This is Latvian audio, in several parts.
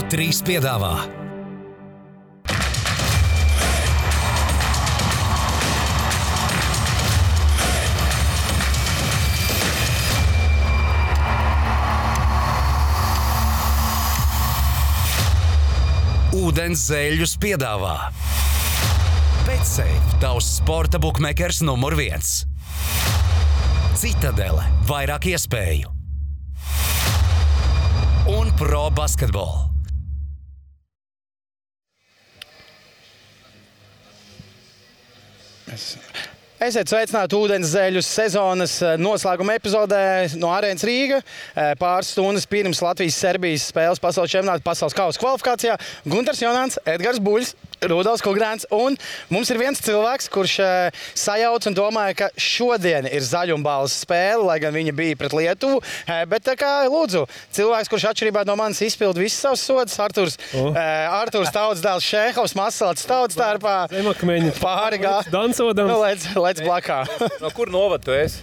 3 piedāvā. Ūdens zēļus piedāvā. Betsafe, tavs sporta bukmekers numur 1. Citadele, vairāk iespēju. Un Pro Basketball. Esiet sveicināti ūdens zēļus sezonas noslēguma epizodē no Arēnas Rīga. Pāris stundas pirms Latvijas-Serbijas spēles pasaules čempionāta pasaules kausa kvalifikācijā. Guntars Jonāns, Edgars Buļs, Rudolfs Kugrāns. Un mums ir viens cilvēks, kurš sajauc un domāja, ka šodien ir zaļumbāles spēle, lai gan viņa bija pret Lietuvu. Bet tā kā, lūdzu, cilvēks, kurš atšķirībā no manis izpild visas savas sodas, Arturs Tautsdēls Šēhovs, Masalats Tautstārpā. Pāri gā. Dansodams. Lec blakā. No kur novad tu esi?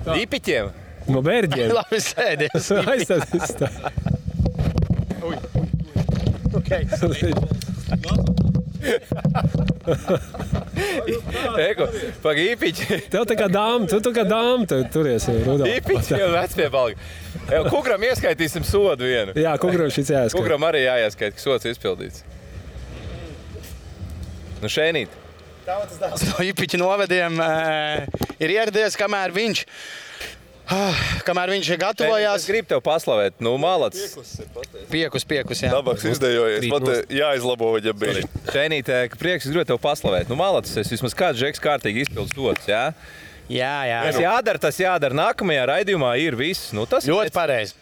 Īpiķiem? No Bērģiem. Labi, sēdies. Aizstāties tā. Eko, pag īpiķi. Tev tā kā dāma, tu kā dāma turies. Īpiķi jau vecpiebalgi. Kukram ieskaitīsim sodu vienu. Jā, Kukram šis jāieskait. Kukram arī jāieskait, ka sods izpildīts. Nu šēnīt. Tautsdēls no īpiķa novediem ir ieradies, kamēr viņš gatavojās. Es gribu tev paslavēt. Nu, malacis. Piekus, jā. Dabaks izdejojies. Pat jāizlabo viņa bija. Šēnīt, prieks, es gribu tev paslavēt. Nu, malacis, es vismaz kāds žeks kārtīgi izpildu sods, jā? Jā. Tas jādara. Nākamajā raidījumā ir viss. Nu, tas ļoti pareizi.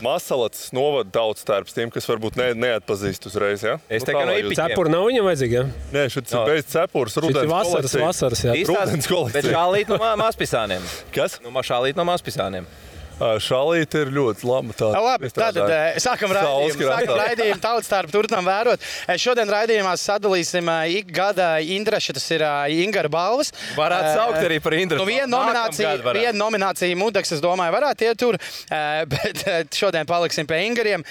Masalats novada Tautstārps tiem, kas varbūt neatpazīst uzreiz, jā? Es teiktu, no īpiķiem. Cepura nav viņam vajadzīga, jā? Nē, šis ir bez cepures, rudens kolekcija. Vasaras, jā. Rudens kolekcija. Bet šālīt no mazpisāniem. Kas? Nu, šālīt no mazpisāniem. Šālīte ir ļoti laba. Labi, tad sākam raidījumu Tautstārpu turpinām vērot. Šodien raidījumā sadalīsim ik gada Indraša, tas ir Ingara balvas. Varētu saukt arī par Indrašu. Viena nominācija Mudaks, es domāju, varētu iet tur, bet šodien paliksim pie Ingariem.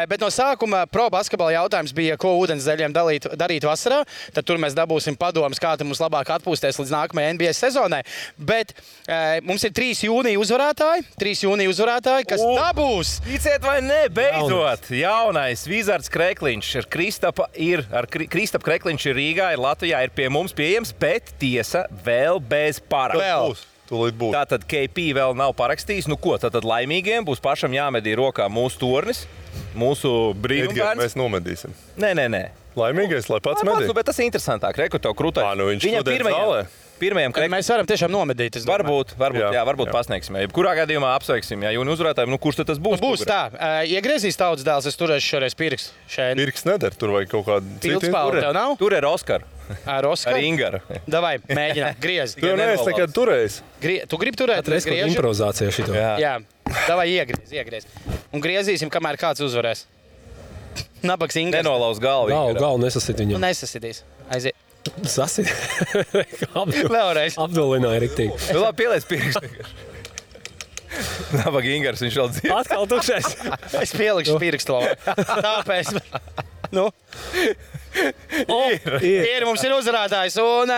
Bet no sākuma Pro Basketball jautājums bija, ko ūdens zeļiem darīt vasarā. Tad tur mēs dabūsim padomus, kā mums labāk atpūsties līdz nākamajai NBA sezonai. Bet mums ir 3 jūnija uzvarētāji, kas dabūs. Ticiet vai ne, beidzot, jaunais Vizards Krekliņš ar Kristapu Krekliņš ir Rīgā, ir Latvijā, ir pie mums pieejams, bet tiesa vēl bez parakstu. Tātad KP vēl nav parakstījis. Nu ko, tātad laimīgiem būs pašam jāmedī rokā mūsu tornis, mūsu brīnumbērns. Mēs nomedīsim. Nē. Laimīgais, lai pats medī. Bet tas ir interesantāk. Reku tev krūtai. Viņš šodien zālē. Mēs varam tiešām nomedīt. Varbūt pasniegsim. Kurā gadījumā apsveiksim, ja jūni uzvarētājiem, kurš tad tas būs? Būs tā. Iegriezīs Tautsdēls, es turēšu šoreiz pirkstu. Pirksts nedara, tur vajag kaut kādu citu. Pildspāli tev nav? Tur ir Oskar. Ar Ingara. Davai, mēģinām, griez. Tu jau neesi nekad turējis. Tu gribi turēt? Reiz kaut improvizācija šito. Jā. Davai, iegriez. Un griezīsim, kamēr kāds uzvarēs. Nabaks Ingars. Nenolauz galvu. Galvu nesasit viņam. Nesasitīs. Aiziet. Sasit. Vēlreiz. Apdulināja riktīgi. Nu labi, pieliec pirkstu. Nabaks Ingars, viņš vēl dzīvo. Atkal tukšais. Es pielikšu pirkstu. Tāpēc. Nu. Ir, mums ir uzvarētājs. Un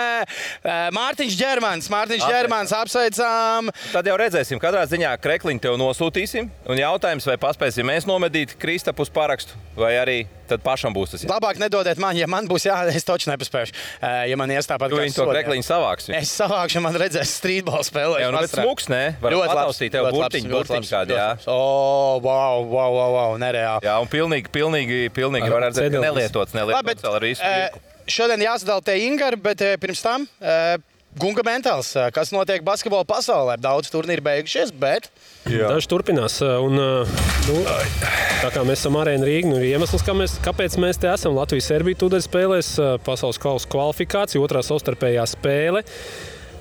Mārtiņš Ģermans, apsveicām. Tad jau redzēsim, katrā ziņā Krekliņu tev nosūtīsim. Un jautājums, vai paspēsim mēs nomedīt Kristapus parakstu, vai arī tad pašam būs tas. Labāk nedodiet man, ja man būs es taču nepaspēšu. Ja man ies tāpat kā viņi to Krekliņu savāks. Es savākšu, man redzēs streetball spēlē. Jā, nu, bet smuks, ne? Varam pataustīt tev burtiņu kādi, jā. Wow, nereāli. Jā, un pilnīgi var redzēt, ka nelietots vēl ar visu. Šodien jāsadala te Ingari, bet pirms tam Gunga Mentāls, kas notiek basketbola pasaulē. Daudz turnīri beigušies, bet... Daži turpinās. Un, tā kā mēs esam Arēna Rīga, ir iemesls, kāpēc mēs te esam. Latvijas-Serbija tūdaļ spēlēs pasaules kausa kvalifikācija, otrā savstarpējā spēle.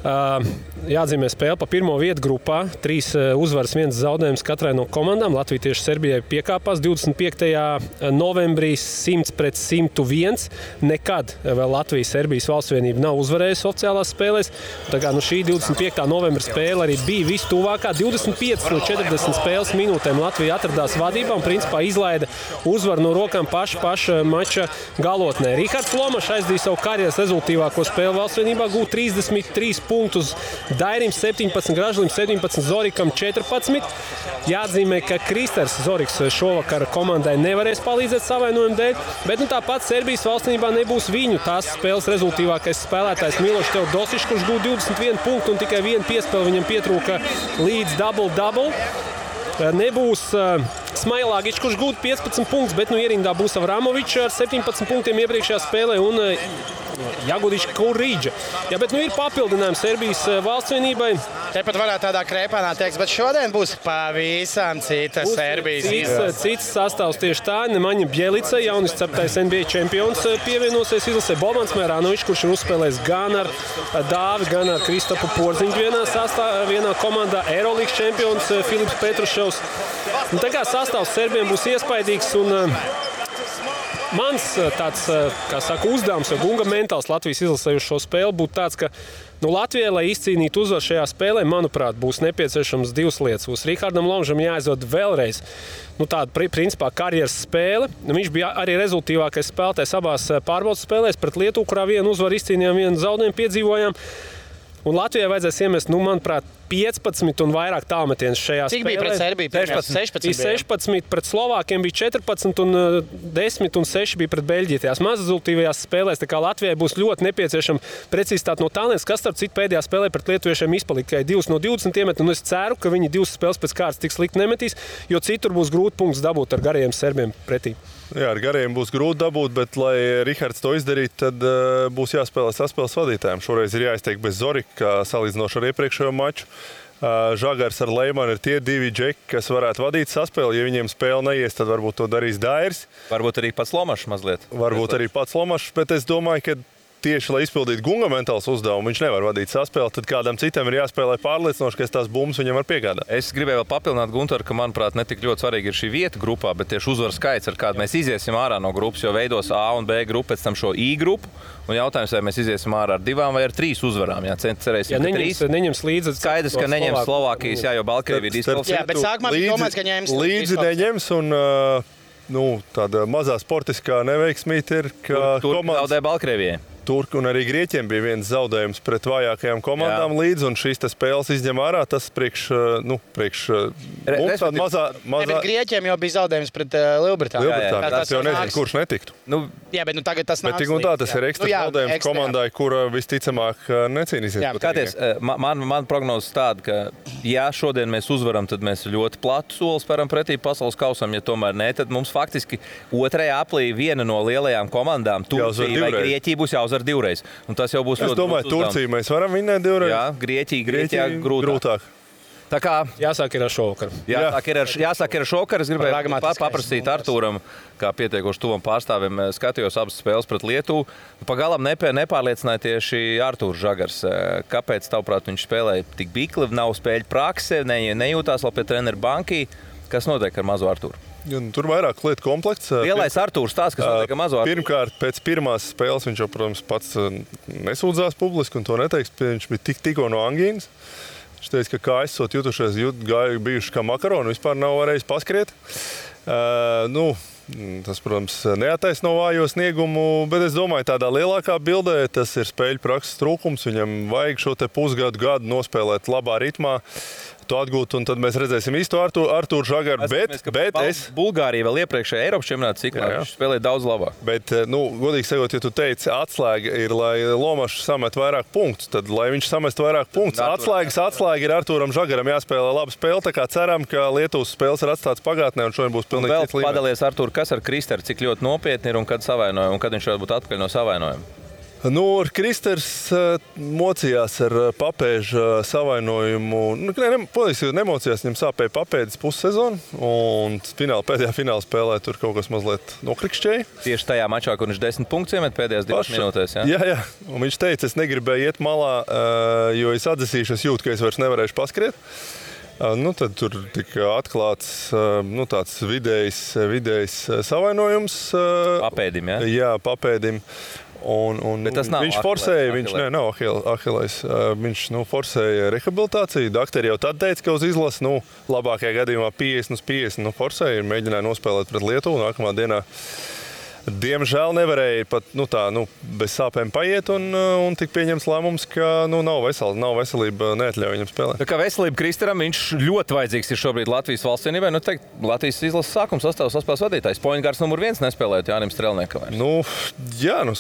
Jāatzīmē spēle pa pirmo vietu grupā. 3 uzvaras, 1 zaudējums katrai no komandām. Latvija tieši Serbijai piekāpās 25. novembrī 100-101. Nekad vēl Latvija-Serbijas valstsvienība nav uzvarējusi oficiālās spēlēs. Tā kā šī 25. novembra spēle arī bija vistuvākā. 25 no 40 spēles minūtēm Latvija atradās vadībā un principā izlaida uzvaru no rokām paša mača galotnē. Rihards Lomašs aizdīja savu karjeras rezultīvāko spēli valstsvienībā, gūt 33 punktus Dairim 17, Gražlim 17, Zorikam 14. Jāatzīmē, ka Kristers Zoriks šovakar komandai nevarēs palīdzēt savainojumu dēļ, bet tāpat Serbijas valstsvienībā nebūs viņu tās spēles rezultīvākais spēlētājs Milošs Teodosičs, kurš gūt 21 punktu un tikai 1 piespēle viņam pietrūka līdz double-double. Nebūs Smailagičs, kurš gūt 15 punktus, bet ierindā būs Avramovičs ar 17 punktiem iepriekšējā spēlē un Jagudičs Kurīģa. Jā, bet ir papildinājums Serbijas valstsvienībai. Tepat varētu tādā krēpānā teikt, bet šodien būs pavisam cita Serbijas. Cits sastāvs tieši tā. Nemaņa Bjelica, jaunis ceptais NBA čempions, pievienosies izlasē Bobans Mēranovičs, kurš ir uzspēlējis gan ar Dāvi, gan ar Kristapu Porziņu vienā komandā. Eirolīgas čempions Filips Petruševs. Tā kā sastāvs Serbiem būs iespaidīgs un mans tāds, kā saka, uzdevums vai gunga mentāls Latvijas izlasē uz šo spēli būtu tāds, ka Latvijai, lai izcīnītu uzvaru šajā spēlē, manuprāt, būs nepieciešams 2 lietas. Būs Rihardam Lomašam jāizdod vēlreiz tāda principā karjeras spēle. Viņš bija arī rezultīvākais spēlētājs abās pārbaudas spēlēs pret Lietuvu, kurā vienu uzvaru izcīnījām, vienu zaudējumu piedzīvojām. Un Latvijai vajadzēs iemest, manuprāt, 15 un vairāk tālmetienus šajā spēlē. Cik bija pret Serbiju? 16 pret Slovākiem bija 14 un 10 un 6 bija pret Beļģiju. Tajās mazrezultīvajās spēlēs, tā kā Latvijai būs ļoti nepieciešama precizitāte no tālienes, kas starp citu pēdējā spēlē pret lietuviešiem izpalika tikai 2 no 20 iemet, un es ceru, ka viņi 2 spēles pēc kārtas tik slikti nemetīs, jo citur būs grūti punktus dabūt ar garajiem serbiem pretī. Jā, ar gariem būs grūti dabūt, bet, lai Rihards to izdarītu, tad būs jāspēlē saspēles vadītājiem. Šoreiz ir jāizteik bez Zorika, salīdzinoši ar iepriekšējo maču. Žagars ar Leimanu ir tie 2 džeki, kas varētu vadīt saspēli. Ja viņiem spēle neies, tad varbūt to darīs Dairis. Varbūt arī pats Lomašs mazliet. Varbūt arī pats Lomašs, bet es domāju, ka tieši, lai izpildītu gunga mentāls uzdevumu, viņš nevar vadīt saspēli, tad kādam citam ir jāspēlē pārliecinoši, ka tās bumbas viņam var piegādāt. Es gribēju vēl papildināt Guntaru, ka, manuprāt, ne tik ļoti svarīgi ir šī vieta grupā, bet tieši uzvaru skaits, ar kādu mēs iziesim ārā no grupas, jo veidos A un B grupu, pēc tam šo I grupu. Un jautājums, vai mēs iziesim ārā ar 2 vai ar 3 uzvarām. Jā, cerēsim, ka neņems līdzi. Skaidrs, ka neņems Slovākijas, jā, jo Baltkrievija ir diskvalificēta. Jā, bet sākumā bija domāts, ka ņems līdzi neņems un tāda mazā sportiskā neveiksmīte ir, ka komandas zaudēja Baltkrievijai. Turki un arī Grieķiem bija viens zaudējums pret vājākajām komandām līdzi, un šīs spēles izņem ārā. Tas priekš mums tāda mazā... Bet Grieķiem jau bija zaudējums pret Lielbritāniju. Tas jau nezinu, kurš netiktu. Jā, bet tagad tas nāks. Bet tik un tā, tas ir ekstra zaudējums komandai, kura visticamāk necīnīsies. Kāties, man prognozes tāda, ka ja šodien mēs uzvaram, tad mēs ļoti platu soli spēram pretī pasaules kausam, ja tomēr ne, tad mums faktiski otrajā aplī viena no lielajām komandām, Turcija vai Grieķija, būs jāuzvar 2 reizes. Un tas jau būs ļoti. Es domāju, Turciju mēs varam vinnēt 2 reizes. Jā, Grieķijā grūtāk. Tā kā jāsāk ir ar šovakaru. Jāsāk ir ar šovakaru. Es gribēju paprasīt Artūram, kā pietiekoši tuvam pārstāvim, skatījos abas spēles pret Lietuvu. Pagalam nepārliecināja tieši Artūrs Žagars. Kāpēc, tavuprāt, viņš spēlēja tik bikli, nav spēļu prakse, nejūtās vēl pie treneru bankī? Kas notiek ar mazo Artūru? Tur vairāk lietu komplekts. Lielais Artūrs tās, kas notiek ar mazo Artūru. Pirmkārt, pēc pirmās spēles viņš jau, protams, pats nesūdzās publiski un to neteiks. Viņš bija tikko no angīnas. Viņš teica, ka kājas esot jutušies, bijuši kā makaroni, vispār nav varējis paskriet. Tas, protams, neattaisno vājo sniegumu, bet es domāju, tādā lielākā bildē tas ir spēļu prakses trūkums. Viņam vajag šo te pusgadu nospēlēt labā ritmā, to atgūt, un tad mēs redzēsim īsto Artūru Žagaru. Bet Bulgārija vēl iepriekšējā Eiropas čempionāta ciklā viņš spēlēja daudz labāk. Bet, godīgi sakot, ja tu teici, atslēga ir, lai Lomašs samet vairāk punktus, tad, lai viņš samest vairāk punktus, atslēga ir Artūram Žagaram jāspēlē laba spēle, tā kā ceram, ka Lietuvas spēles ir atstāts pagātnē, un šodien būs pilnīgi cits līmenis. Padalies, Artūr, kas ar Kristeru, cik ļoti nopietni ir un kad savainoja, un kad viņš varētu būt atpakaļ no savainojuma? Ar Kristers mocījās ar papēža savainojumu. Nemocījās, viņam sāpēja papēdis pussezonu, un pēdējā fināla spēlē tur kaut kas mazliet nokrikšķēja. Tieši tajā mačā, kur viņš 10 punktus iemet pēdējās 2 minūtēs. Jā. Un viņš teica, es negribēju iet malā, jo es atdzesīšu, es jūtu, ka es vairs nevarēšu paskriet. Tad tur tika atklāts tāds vidējs savainojums. Papēdim, jā? Jā, papēdim. Un viņš forsēja, nav Ahilais. Viņš forsēja rehabilitāciju. Dakteri jau tad teica, ka uz izlasi labākajā gadījumā 50/50 forsēja. Mēģināja nospēlēt pret Lietuvu nākamā dienā. Diemžēl nevarēja pat bez sāpēm paiet un tika pieņemts lēmums, ka nav veselība, neatļauj viņam spēlēt. Tā kā veselība Kristaram, viņš ļoti vajadzīgs ir šobrīd Latvijas valsts vienībai. Latvijas izlases sākuma sastāvs saspēles vadītājs. Pointgārds numur 1 nespēlējot Jānim Strelniekam.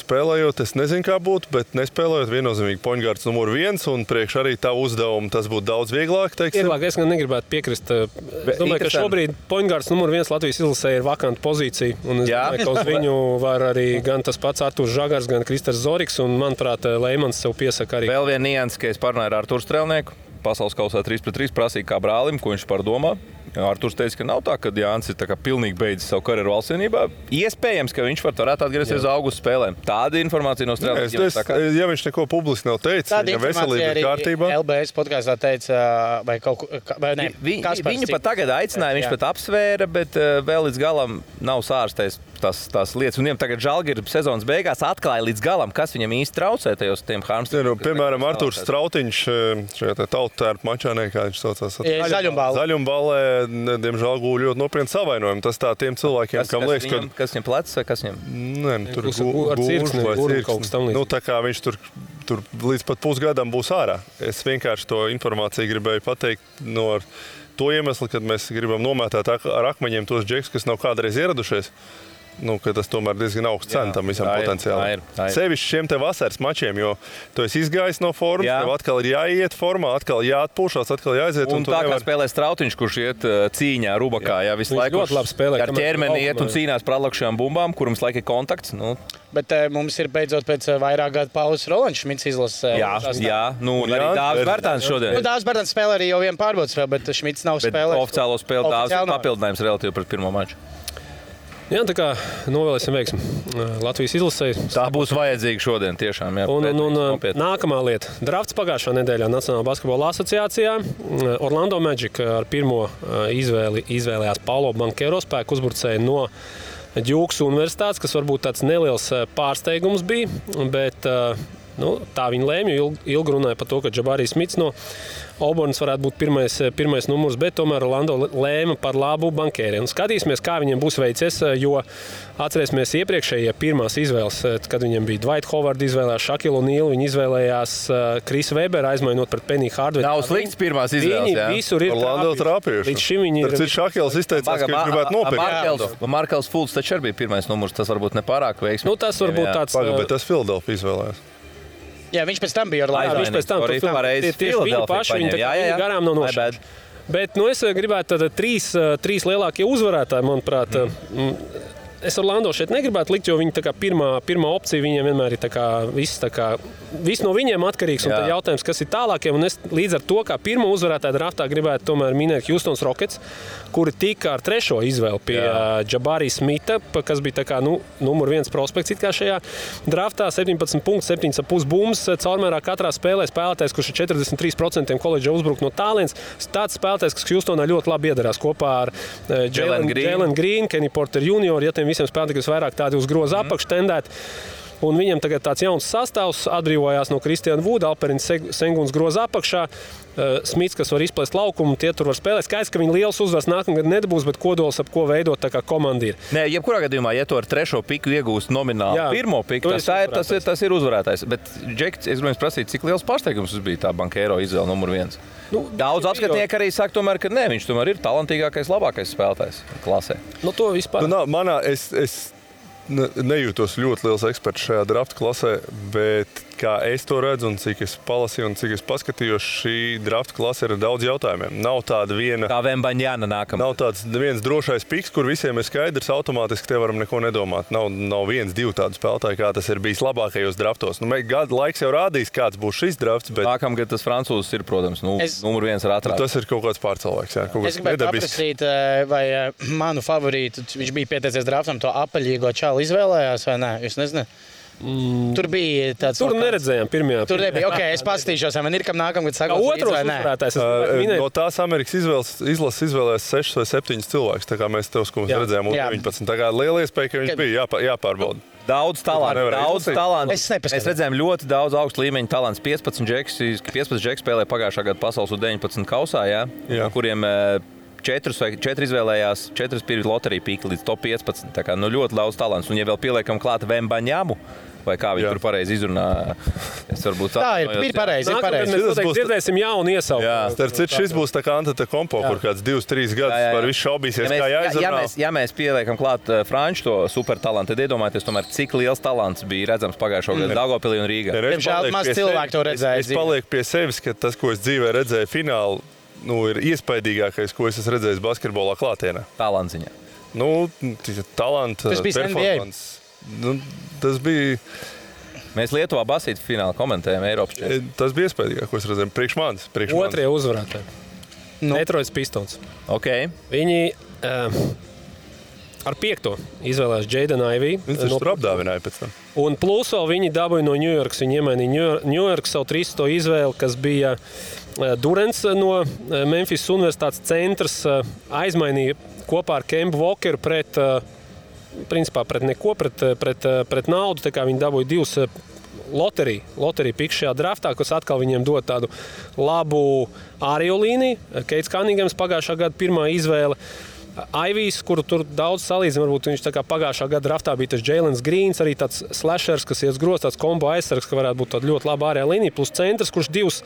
Spēlējot, es nezinu, kā būtu, bet nespēlējot viennozīmīgi Pointgārds numur 1 un priekš arī tā uzdevuma tas būtu daudz vieglāk. Vieglāk, es gan negribētu piekrist. Es domāju, ka šobrīd Pointgārds numur 1 Latvijas izlasē ir vakanta pozīcija. Un es domāju, ka uz viņu var arī gan tas pats Arturs Žagars, gan Kristers Zoriks, un, manuprāt, Leimans sev piesaka arī. Vēl viena nianse, ka es parunāju ar Arturu Strelnieku. Pasaules kausā 3-3 prasīja kā brālim, ko viņš par domā. Arturs teica, ka nav tā, ka Jānis ir pilnīgi beidzis savu karjeru valsts vienībā. Iespējams, ka viņš varētu atgriezties uz augusta spēlēm. Tāda informācija no Strelnieka. Ja viņš neko publiski nav teicis, viņa veselība ir kārtībā. LBS podkāstā teica, vai kaut ko ne. Viņu pat tagad aicināja, viņš pat apsvēra, bet vēl līdz galam nav sārstējis tās lietas. Un viņam tagad Žalgiris sezonas beigās atklāja līdz galam, kas viņam īsti traucē tajos tiem Harmstiem. Piemēram, Arturs Strautiņš šajā tautērpu mačā, kā viņš saucās. Zaļumballē, diemžēl gūļ ļoti nopietni savainojumu. Tas tā tiem cilvēkiem, kam liekas, ka... Kas viņam plecs vai kas viņam? Tur gūļ vai cirksni. Tā kā viņš tur līdz pat pusgadam būs ārā. Es vienkārši to informāciju gribēju pateikt no to iemeslu, kad mēs gribam nomētāt ar akmeņiem tos džekus, kas nav kādreiz ieradušies. Ka tas tomēr diezgan augsts cena tam visam potenciāli. Sevišķi šiem te vasaras mačiem, jo tu esi izgājis no formas, tev atkal ir jāiet formā, atkal jāatpūšās, atkal jāaiziet. Un tā kā spēlē Strautiņš, kurš iet cīņā, rubakā, visu laiku ar ķermeni iet un cīnās par atlakšajām bumbām, kuram visu laiku ir kontakts. Bet mums ir beidzot pēc vairāk gadu pauzes Rolands Šmits izlases. Jā. Arī Dāvis Bērtāns šodien. Dāvis Bērtāns spēlē arī jau vienu pārbaudas spēli, bet Šmits nav spēlējis. Oficiālo spēli Dāvis ir papildinājums relatīvi pret pirmo maču. Jā, tā kā novēlēsim veiksmi Latvijas izlasē. Tā būs vajadzīga šodien tiešām. Jā, un nākamā lieta. Drafts pagājušā nedēļā Nacionālā basketbola asociācijā. Orlando Magic ar pirmo izvēlējās Paulo Banchero, spēku uzbrucēju no Djukas universitātes, kas varbūt tāds neliels pārsteigums bija, bet tā viņi lēma, jo ilgi runāja par to, ka Džabarijs Smits no Auburnas varētu būt pirmais numurs, bet tomēr Orlando lēma par labu Banchēriem. Skatīsimies, kā viņiem būs veicies, jo atcerēsimies iepriekšējie pirmās izvēles, kad viņiem bija Dwight Howard izvēlējās, Shaquille O'Neal, viņi izvēlējās Chris Webber, aizmainot pret Penny Hardaway. Nav slikts pirmās izvēles, jā. Visur ir Orlando trāpījuši. Līdz šim viņi ir... Shaquilles izteicās, ka viņš gribētu nopirkt. Markels Fultz taču arī bija pirmais numurs, tas varbūt nepārāk veiksmīgi. Tas varbūt tāds... Bet tas Philadelphia izvēlējās. Jā, viņš pēc tam bija Orlando. Viņš pēc tam tieši viņu paši, viņi garām nav nošķēruši. Bet es gribētu trīs lielākie uzvarētāji, manuprāt. Es Orlando šeit negribētu likt, jo viņi pirmā opcija viņiem vienmēr ir viss no viņiem atkarīgs. Un tad jautājums, kas ir tālākiem. Un es līdz ar to, kā pirmo uzvarētāju draftā gribētu tomēr minēt Houstons Rockets, kuri tika ar trešo izvēli pie Džabarija Smita, kas bija numur 1 prospekts šajā draftā. 17 punktus, 7,5 bumbas. Caurmērā katrā spēlē spēlētājs, kurš ir 43% koledža uzbrukt no tālienes. Tāds spēlētājs, kas Houstonā ļoti labi iedarās kopā ar Jalen Green, Kenny Porter Jr. Ja tiem visiem spēlētājiem, kas vairāk tādi uz groza apakš tendēt. Un viņam tagad tāds jauns sastāvs atbrīvojās no Kristiāna Vuda, Alperins Senguns groza apakšā, Smits, kas var izplēst laukumu, tie tur var spēlēt. Skaidrs, ka viņi liels uzvars nākamgad nedabūs, bet kodols, ap ko veidot tā kā komanda ir. Nē, jebkurā gadījumā, ja tu ar trešo piku iegūst nomināli pirmo piku, tas ir uzvarētājs. Bet, Džek, es gribēju prasīt, cik liels pārsteigums bija tā Banchero izvēle numur 1? Daudz apskatnieki arī saka, tomēr, ka nē, viņš tomēr ir talantīgākais, labākais spēlētājs klasē. To vispār. Es nejūtos ļoti liels eksperts šajā drafta klasē, bet kā es to redzu un cik es palasīju un cik es paskatījos, šī drafta klase ir daudz jautājumiem. Nav tāda viena. Kā Vembaņāna nākamā. Nav tāds viens drošais piks, kur visiem ir skaidrs, automātiski te varam neko nedomāt. Nav viens, divi tādu spēlētāji, kā tas ir bijis labākajos draftos. Gada laiks jau rādīs, kāds būs šis drafts, bet nākamgad tas francūzs ir, protams, numur viens ar atrādu. Tas ir kaut kāds pārcilvēks, jā. Es gribētu paprasīt, vai manu favorītu, viņš bija pieteicies draftam, to apaļīgo čālu izvēlējās vai nē? Jūs nezināt? Tur bija tāds. Tur neredzējām pirmajā. Tur nebija. Ok, es paskatīšos, vai man ir kam nākamgad sakot otros vai nē. uzvarētājs. No tās Amerikas izlases izvēlējās 6 vai 7 cilvēkus, tā kā mēs tev redzējām U19. Tā kā liela iespēja, ka viņš bija jāpārbauda. Daudz talantu. Mēs redzējām ļoti daudz augstu līmeņu talants. 15 džeki spēlēja pagājušā gada pasaules U19 kausā, kuriem 4 izvēlējās, 4 bija loterija pīka līdz top 15. Tā kā ļoti daudz talants. Un ja vēl pieliekam klāt Vembaņāmu, vai kā viņi tur pareizi izrunā, es varbūt tā ir pareizi. Mēs dzirdēsim jaunu iesaukumu. Starp citu, šis būs tā kā Antetokounmpo, kur kāds 2-3 gadus par visu šaubīsies, kā jāizrunā. Ja mēs pieliekam klāt Franču to supertalantu, tad iedomājieties, tomēr, cik liels talants bija redzams pagājušo gadu Daugavpilī un Rīgā. Diemžēl maz cilvēku to redzēja. Es palieku pie sevis, ka tas, ko es dzīvē redzēju finālu, ir iespaidīgākais, ko es esmu redzējis basketbolā klātienē. Talantsiņā. Talanta, performance. Tas bija. Mēs Lietuvā basītu finālu komentējam Eiropas čempionātā. Tas bija iespaidīgāk, ko es redzēju. Priekš manis. Otrie uzvarētāji. Detroits Pistons. Okay. Viņi ar 5. izvēlējās Jaden Ivey. Viņš tur apdāvināja pēc tam. Un plus vēl viņi dabūja no New Yorkas. Viņi iemainīja New Yorkas savu 3. izvēli, kas bija Durants no Memphis Universitātes centrs. Aizmainīja kopā ar Kembu Walkeru pret naudu. Tā kā viņi dabūja 2 loteriju piks šajā draftā, kas atkal viņiem dod tādu labu ārējo līniju. Keits Kaningams pagājušā gada pirmā izvēle. Aivijs, kuru tur daudz salīdzina, varbūt viņš tā kā pagājušā gada draftā bija tas Jēlens Grīns, arī tāds slashers, kas ies groz, tāds kombo aizsargs, ka varētu būt tāda ļoti laba ārējā līnija, plus centrs, kurš 2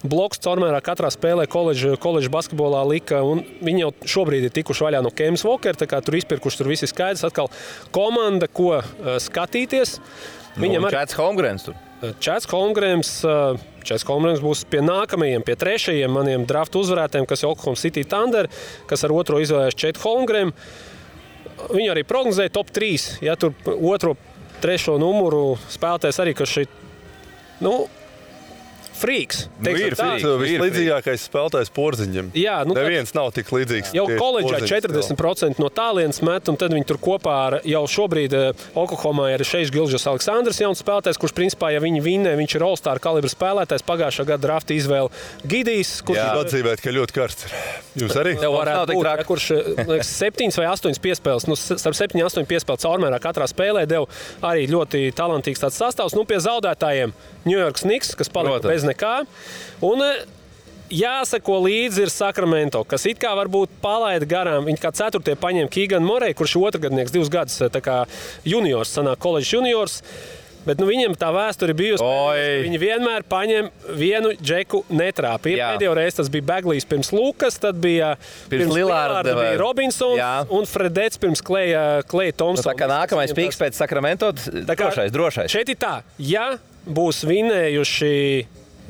blokus caurmērā katrā spēlē koledža basketbolā lika, un viņi jau šobrīd ir tikuši vaļā no Kems Walker, tā kā tur izpirkuši, tur viss ir skaidrs, atkal komanda, ko skatīties. Viņam Chats Holmgrens tur. Chats Holmgrens būs pie nākamajiem, pie 3. maniem draftu uzvarētājiem, kas ir Oklahoma City Thunder, kas ar 2. izvēlējās Chet Holmgren. Viņi arī prognozēja top 3. Ja tur 2., 3. numuru spēlētājs arī, kas šeit, frīks. Vislīdzīgākais spēlētājs Porziņam. Jā, neviens nav tik līdzīgs. Jau koledžā 40% no tālienes met, un tad viņi tur kopā ar jau šobrīd Oklahomā ir Šeiks Gilžas Aleksandrs, jauns spēlētājs, kurš principā, ja viņi vinnē, viņš ir All-Star kalibra spēlētājs. Pagājušā gada drafta izvēle Gidijs, kurš atzīmēt, ka ļoti karsts. Jūs arī? Tev varētu būt, kurš 7 vai 8 piespēles, starp 7-8 piespēles caurmērā katrā spēlē deva arī ļoti talantīgs tāds sastāvs. Pie zaudētājiem New York Knicks, kas palika bez nekā. Un jāsako līdzi ir Sacramento, kas it kā varbūt palaida garām. Viņi kā 4. paņēma Keegan Murray, kurš ir otrgadnieks 2 gadus, tā kā juniors, sanāk koledžas juniors. Bet viņiem tā vēsture bijusi. Viņi vienmēr paņem vienu džeku netrāpīja. Pēdējo reizi tas bija Baglijs pirms Lukas, tad bija pirms Lillarda bija Robinsons un Fredets pirms Kleja Thompsona. Tā kā nākamais piks pēc Sacramento, drošais. Šeit ir tā, ja būs vinējuši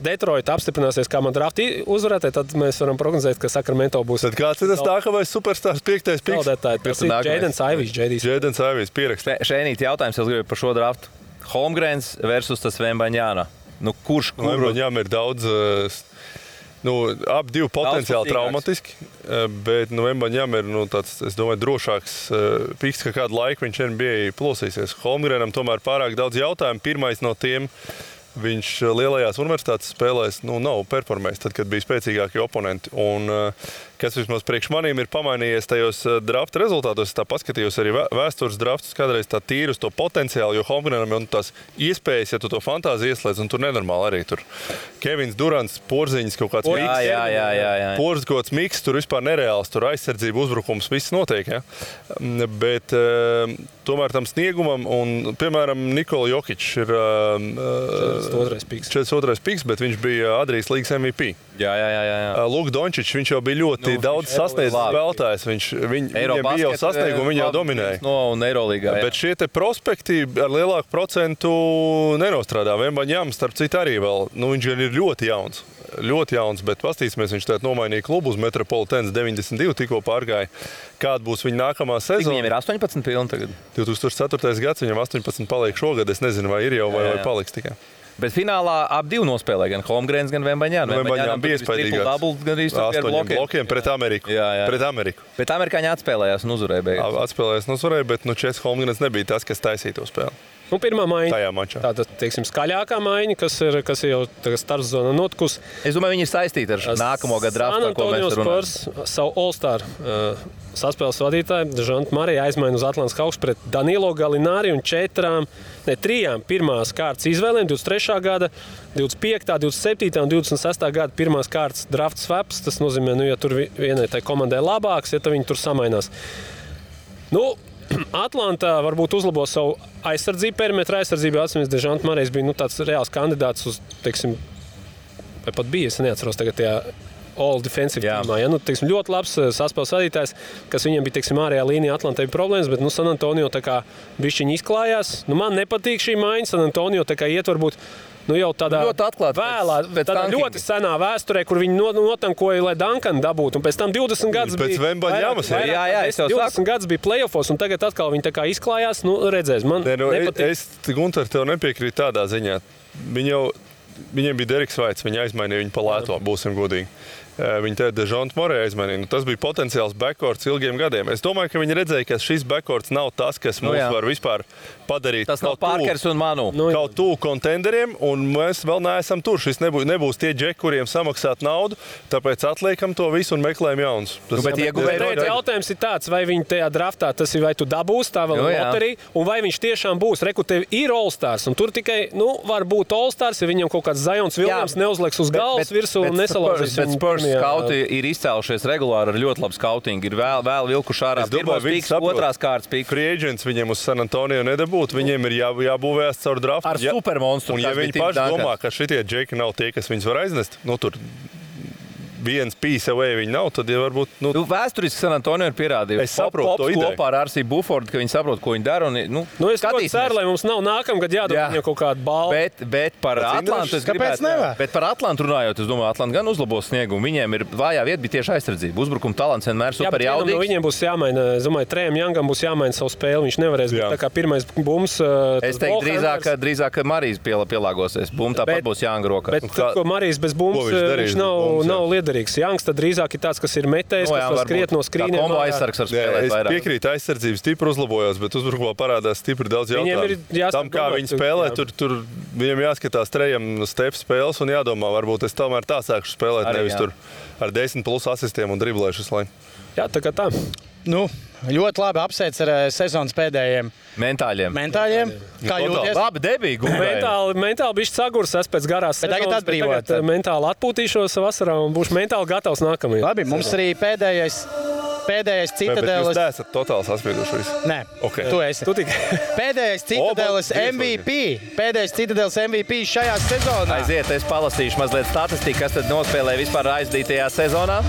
Detroit apstiprināsies kā man drafti uzvarētāji, tad mēs varam prognozēt, ka Sacramento būs. Tad kāds ir tas nākamais superstars 5. piks? Tas ir Jadens Ivijs. Jadens Ivijs pierakstīt. Šeit jautājums, es gribu par šo draftu. Holmgrens versus tas Vembaņāna. Kurš? Vembaņām ir daudz, ap 2 potenciāli traumatiski, bet Vembaņām ir tāds, es domāju, drošāks piks, ka kādu laiku viņš NBA plosīsies. Holmgrenam tomēr pārāk daudz jautājumu. Pirmais no tiem, viņš lielajās universitātes spēlēs nav performējis, tad, kad bija spēcīgākie oponenti. Un kas vismaz priekš manīm ir pamainījies tajos drafta rezultātos, es tā paskatījos arī vēstures draftus, kādreiz tā tīri uz to potenciālu, jo Holmgrenam jau tās iespējas, ja tu to fantāziju ieslēdz, un tur nenormāli arī tur. Kevins Durants, Porziņas kaut kāds miks. Porziņas kaut kāds miks, tur vispār nereāls, tur aizsardzība, uzbrukums, viss notiek, ja? Bet tomēr tam sniegumam, un, piemēram, Nikola Jokić ir 42. piks, bet viņš bija Adrijas līgas MVP. Jā. Luka Dončičs, viņš jau bija ļoti daudz sasniedzis spēlētājs. Viņam bija jau sasniegumi, viņi jau dominēja. Un Eirolīgā, bet šie te prospekti ar lielāku procentu nenostrādā. Vembaņjams, starp citu, arī vēl. Viņš ir ļoti jauns. Ļoti jauns, bet pastīsimies, viņš tagad nomainīja klubu uz Metropolitans 92, tikko pārgāja. Kāda būs viņa nākamā sezona? Viņiem ir 18 pilni tagad. 2004. gads, viņam 18 paliek šogad. Es nezinu, vai ir jau vai paliks tikai. Bet finālā ap divi nospēlēja gan Holmgrens, gan Vembaņjāns. Vembaņjāns bija iespaidīgāks. 8 blokiem pret Ameriku. Pret Ameriku. Bet amerikāņi atspēlējās un uzvarēja beigās. Atspēlējās un uzvarēja, bet Čes Holmgrens nebija tas, kas taisīja to spēli. Pirmā maiņa. Tajā mačā. Tātad, teiksim, skaļākā maiņa, kas ir jau starpzona notikusi. Es domāju, viņi ir saistīti ar nākamo gadu draftu, ko mēs runājam. Savu All-Star saspēles vadītāju Dežantu Mariju aizmaina uz Atlantas Hawks pret Danilo Gallinari un 3 pirmās kārtas izvēlēm 23. gada, 25., 27. un 26. gada pirmās kārtas draft swaps. Tas nozīmē, ja tur vienai tai komandai labāks, ja viņi tur samainās. Atlantā varbūt uzlabo savu aizsardzību, perimetra aizsardzību. Atcīmēs, Dežants Marijs bija tāds reāls kandidāts uz, teiksim, vai pat bija, es neatceros tagad tajā all defensive teamā. Ja? Teiksim, ļoti labs saspēles vadītājs, kas viņam bija, teiksim, ārējā līnijā Atlantai problēmas, bet San Antonio tā kā bišķiņi izklājās. Man nepatīk šī maiņa, San Antonio tā kā iet varbūt jau tādā ļoti atklāti tādā ļoti senā vēsturē, kur viņi notankoja, lai Duncanu dabūtu. Un pēc tam 20 gadus bija... Pēc Vembaņjamas. Jā, 20 gadus bija playoffos, un tagad atkal viņi tā kā izklājās. Redzēs, man nepatīk. Es, Gunter, tev nepiekrītu tādā ziņā. Viņiem bija Deriks Vaits, viņi aizmainīja viņu pa lēto, būsim godīgi. Viņi te Dežantu Mariju aizmainīja. Tas bija potenciāls backcourts ilgiem gadiem. Es domāju, ka viņi redzēja, ka šis backcourts nav tas, kas mums var vispār padarīt. Tas nav Parkers un Manu. Kaut tuvu kontenderiem, un mēs vēl neesam tur. Šis nebūs tie džeki, kuriem samaksāt naudu, tāpēc atliekam to visu un meklējam jaunus. Jautājums ir tāds, vai viņi tajā draftā, tas ir vai tu dabūsi tā vēl loterija, un vai viņš tiešām būs. Reku, tev ir All-Stars, un tur tikai, var būt All-Stars, ja viņam kaut kāds Zions Viljams neuzliks uz galvas virsū un nesalauzīs. Skauti ir izcēlušies regulāri ar ļoti labu skautingu. Ir vēl vilkuši ārā pirmos pīks, otrās kārtas pīks. Free agents viņiem uz San Antonio nedabūt, viņiem ir jābūvējas caur draftu. Ar supermonstru. Un ja viņi paši domā, ka šitie džeki nav tie, kas viņus var aiznest, tur viens piece away viņi nav, tad jau varbūt... Vēsturiski San Antonio ir pierādījuši. Es saprotu to ideju. Kopā ar R.C. Buffordu, ka viņi saprot, ko viņi dara. Es ļoti ceru, lai mums nav nākamgad jādod viņam kaut kādu balvu. Bet par Atlantu es gribētu... Bet par Atlantu runājot, es domāju, Atlanta gan uzlabos sniegumu. Viņiem ir vājā vieta, bija tieši aizsardzība. Uzbrukuma talants vienmēr super jaudīgs. No viņiem būs jāmaina, es domāju, Trējam Youngam būs jāmaina savu spēli. Viņš nevarēs būt tā kā pirmais bums. Es teiktu drīzāk, ka Marijs pielāgosies. Bum tāpat būs Younga rokā. Bet Marijs bez bums viņš nav liederīgs. Youngs tad drīzāk ir tāds, kas ir metējis, kas var skriet no skrīniem. Kombo aizsargs var spēlēt vairāk. Es piekrītu, aizsardzības stipri uzlabojās, bet uzbrukumā parādās stipri daudz jautājumu. Tam, kā viņi spēlē, tur viņiem jāskatās Trējam step spēles un jādomā, varbūt es tomēr tā sākšu spēlēt, nevis tur ar 10+ asistiem un driblēšu visu laiku. Jā, tā kā tā. Ļoti labi apsveic ar sezonas pēdējiem mentāļiem. Kā jūties? Labi, debīgi. Mentāli bišķi sagurs es pēc garās sezonas. Tagad mentāli atpūtīšos vasarā un būšu mentāli gatavs nākamajai. Labi, mums arī pēdējais Citadeles. Jūs neesat totāli saspieduši visu? Nē, okay. Tu esi. Pēdējais Citadeles MVP. Pēdējais Citadeles MVP šajā sezonā. Aiziet, es palasīšu mazliet statistiku, kas tad nospēlēja vispār aizdītajā sezonā.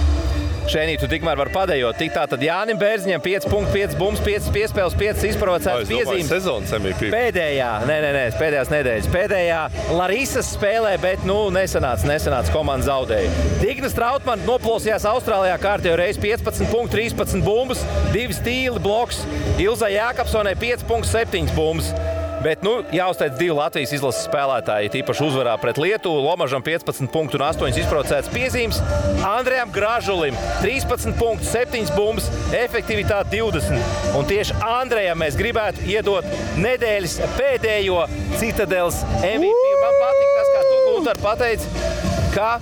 Šeit tu tikmēr var padējot. Tik tā tad Jānim Bērziņam 5,5 bums, 5 piespēles, 5 izprovocētas piezīmes. Sezonas MVP. Pēdējās nedēļas. Pēdējā Larisas spēlē, bet nesanāca komanda zaudēja. Dignas Trautmann noplosījās Austrālijā kārtējo reizi 15 punktu, 13 bumbas, 2 stīli bloks. Ilzai Jākapsonai 5,7 bumbas. Bet jāuzteic 2 Latvijas izlases spēlētāji, tīpaši uzvarā pret Lietuvu. Lomažam 15 punktu un 8 izprovocētas piezīmes. Andrejam Gražulim 13 punktu, 7 bumbas, efektivitāte 20. Un tieši Andrejam mēs gribētu iedot nedēļas pēdējo Citadeles MVP. Man patīk tas, kā tu, Gunter, pateici, ka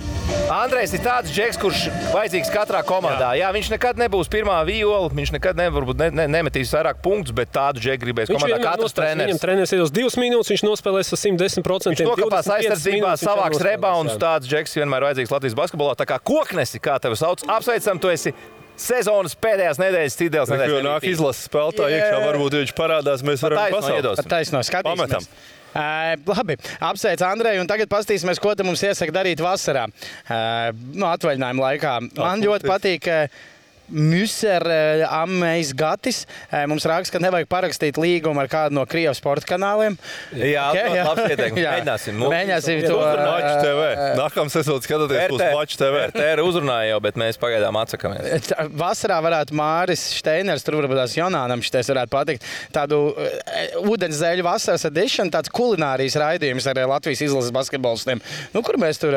Andrejs ir tāds džeks, kurš vajadzīgs katrā komandā. Jā, viņš nekad nebūs pirmā viola, viņš nekad nemetīs vairāk punktus, bet tādu džeku gribēs komandā katrs treneris. Viņam treneris iedos 2 minūtes, viņš nospēlēs ar 110%. Viņš nokāpās aizsardzībā, savāks rebounds, tāds džeks vienmēr vajadzīgs Latvijas basketbolā. Tā kā Koknesi, kā tevi sauc, apsveicam, tu esi sezonas pēdējās nedēļas Citadeles nedēļas. Jo nāk izlases spēlētāji iekšā, varbūt viņš parādās, mēs varam pasaukt. Taisno, skatīsimies. Labi, apsveic Andreju, un tagad paskatīsimies, ko te mums iesaka darīt vasarā. Atvaļinājuma laikā. Man ļoti patīk Müser Amejs Gatis. Mums raksta, ka nevajag parakstīt līgumu ar kādu no Krievijas sporta kanāliem. Jā, labs ieteikums. Mēģināsim to. Maču TV. Nākamā sezona skatāties uz Maču TV. RTR uzrunāja jau, bet mēs pagaidām atsakamies. Vasarā varētu Māris Šteiners, tur varbūt tās Jonānam šitais varētu patikt, tādu ūdenszeļu vasaras edition, tāds kulinārijas raidījums ar Latvijas izlases basketbolistiem. Kur mēs tur...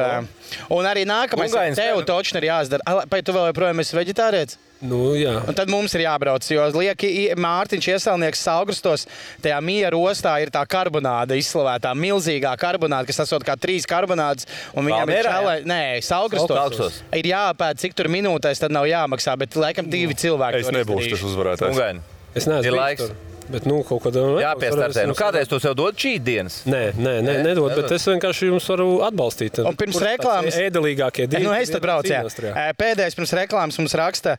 Un arī nākamais, tev točni ir jāizdara. Vai tu vēl joprojām esi veģetārietis? Jā. Un tad mums ir jābrauc, jo Mārtiņš Ieselnieks Saugrustos, tajā Miera ostā ir tā karbonāda izslavētā, milzīgā karbonāda, kas esot kā 3 karbonādas. Un viņam ir Saugrustos. Ir jāpēd, cik tur minūtēs, tad nav jāmaksā, bet laikam 2 cilvēki. Es nebūšu tas uzvarētājs. Es neesmu laiks. Bet, kaut kādā jāpiestartē. Kādreiz tu sev dod šī dienas? Nē, nedod, bet es vienkārši jums varu atbalstīt. Un pirms reklāmas... Ēdelīgākie divi. Es tad braucu, jā. Pēdējais pirms reklāmas mums raksta,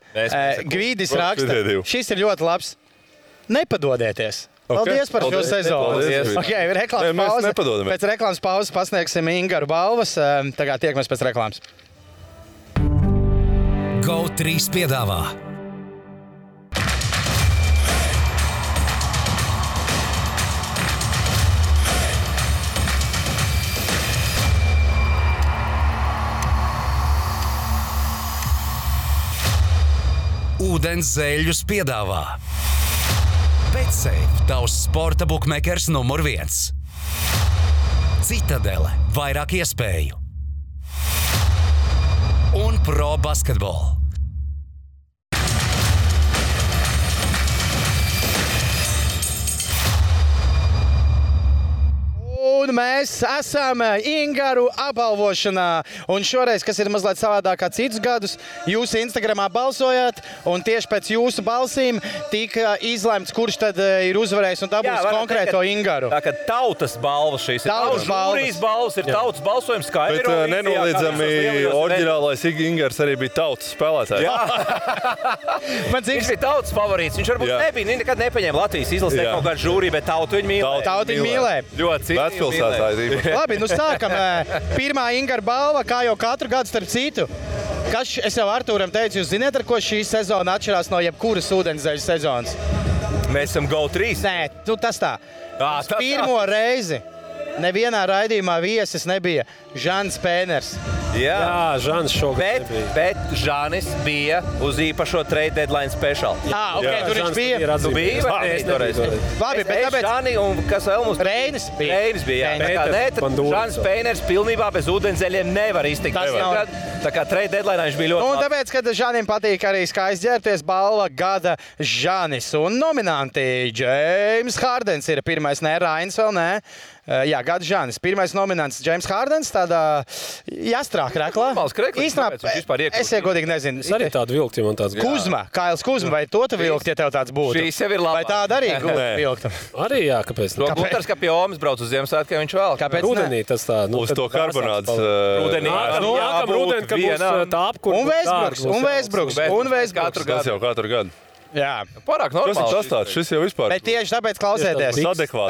Gvīdis raksta, šis ir ļoti labs. Nepadodieties. Paldies par šo sezonu. Reklāmas pauze. Pēc reklāmas pauzes pasniegsim Ingaru balvas. Tagad tiekamies pēc reklāmas. GO3 piedāvā Ūdens zeļus piedāvā BetSafe, tavs sporta bukmekers numur 1. Citadele, vairāk iespēju. Un Pro Basketball. Un mēs esam Ingaru apbalvošanā. Un šoreiz, kas ir mazliet savādāk kā citus gadus, jūs Instagramā balsojāt, un tieši pēc jūsu balsīm tika izlemts, kurš tad ir uzvarējis un dabūs konkrēto Ingaru. Tā kā tautas balvas šīs ir. Tautas žūrijas balvas ir tautas balsojums, kā Bet nenoliedzami oriģinālais Ingars arī bija tautas spēlētājs. Viņš bija tautas favorīts. Viņš varbūt nebija, nekad nepaņēma Latvijas izlasē kaut kādu žūriju, bet tautu viņu mīlēja. Tautu viņu mīlēja. Ļoti Labi, sākam. Pirmā Ingara balva, kā jau katru gadu starp citu. Es jau Artūram teicu, jūs zināt, ar ko šī sezona atšķirās no jebkuras ūdenszeļu sezonas? Mēs esam GO3. Nē, tas tā. Pirmo reizi nevienā raidījumā viesis nebija Žans Pēners. Jā, Žans šogad nebija. Bet Žanis bija uz īpašo trade deadline special. Tur viņš bija. Tu biji? Labi, bet tāpēc... Žani un kas vēl mums... Reinis bija. Žans Pēners pilnībā bez ūdenszeļiem nevar iztikt. Tā kā trade deadline viņš bija ļoti labi. Un tāpēc, kad Žanim patīk arī skaisti ģērbties, balva gada Žanis. Un nominanti James Hardens ir pirmais, Rainis vēl nē. Jā, gada Žanis. Pirmais nominants James Hardens, tādā jāstrāk reklā. Īstenībā, es godīgi nezinu. Es arī tādu vilktu, ja man tāds Kuzma, Kails Kuzma, vai to tu vilkt, ja tev tāds būtu? Šīs jau ir labā. Vai tāda arī vilkta? Arī jā, kāpēc? Gunārs, ka pie Omas brauc uz Ziemassvētkiem, viņš vēl. Kāpēc rudenī tas tā? Uz to karbonādas. Rudenī, ka būs tā apkurba. Un Vēsbruks. Tas jau katru gadu. Jā. Pārāk normāli. Kas ir tas tāds? Šis jau vispār. Bet tieši tāpēc klausieties.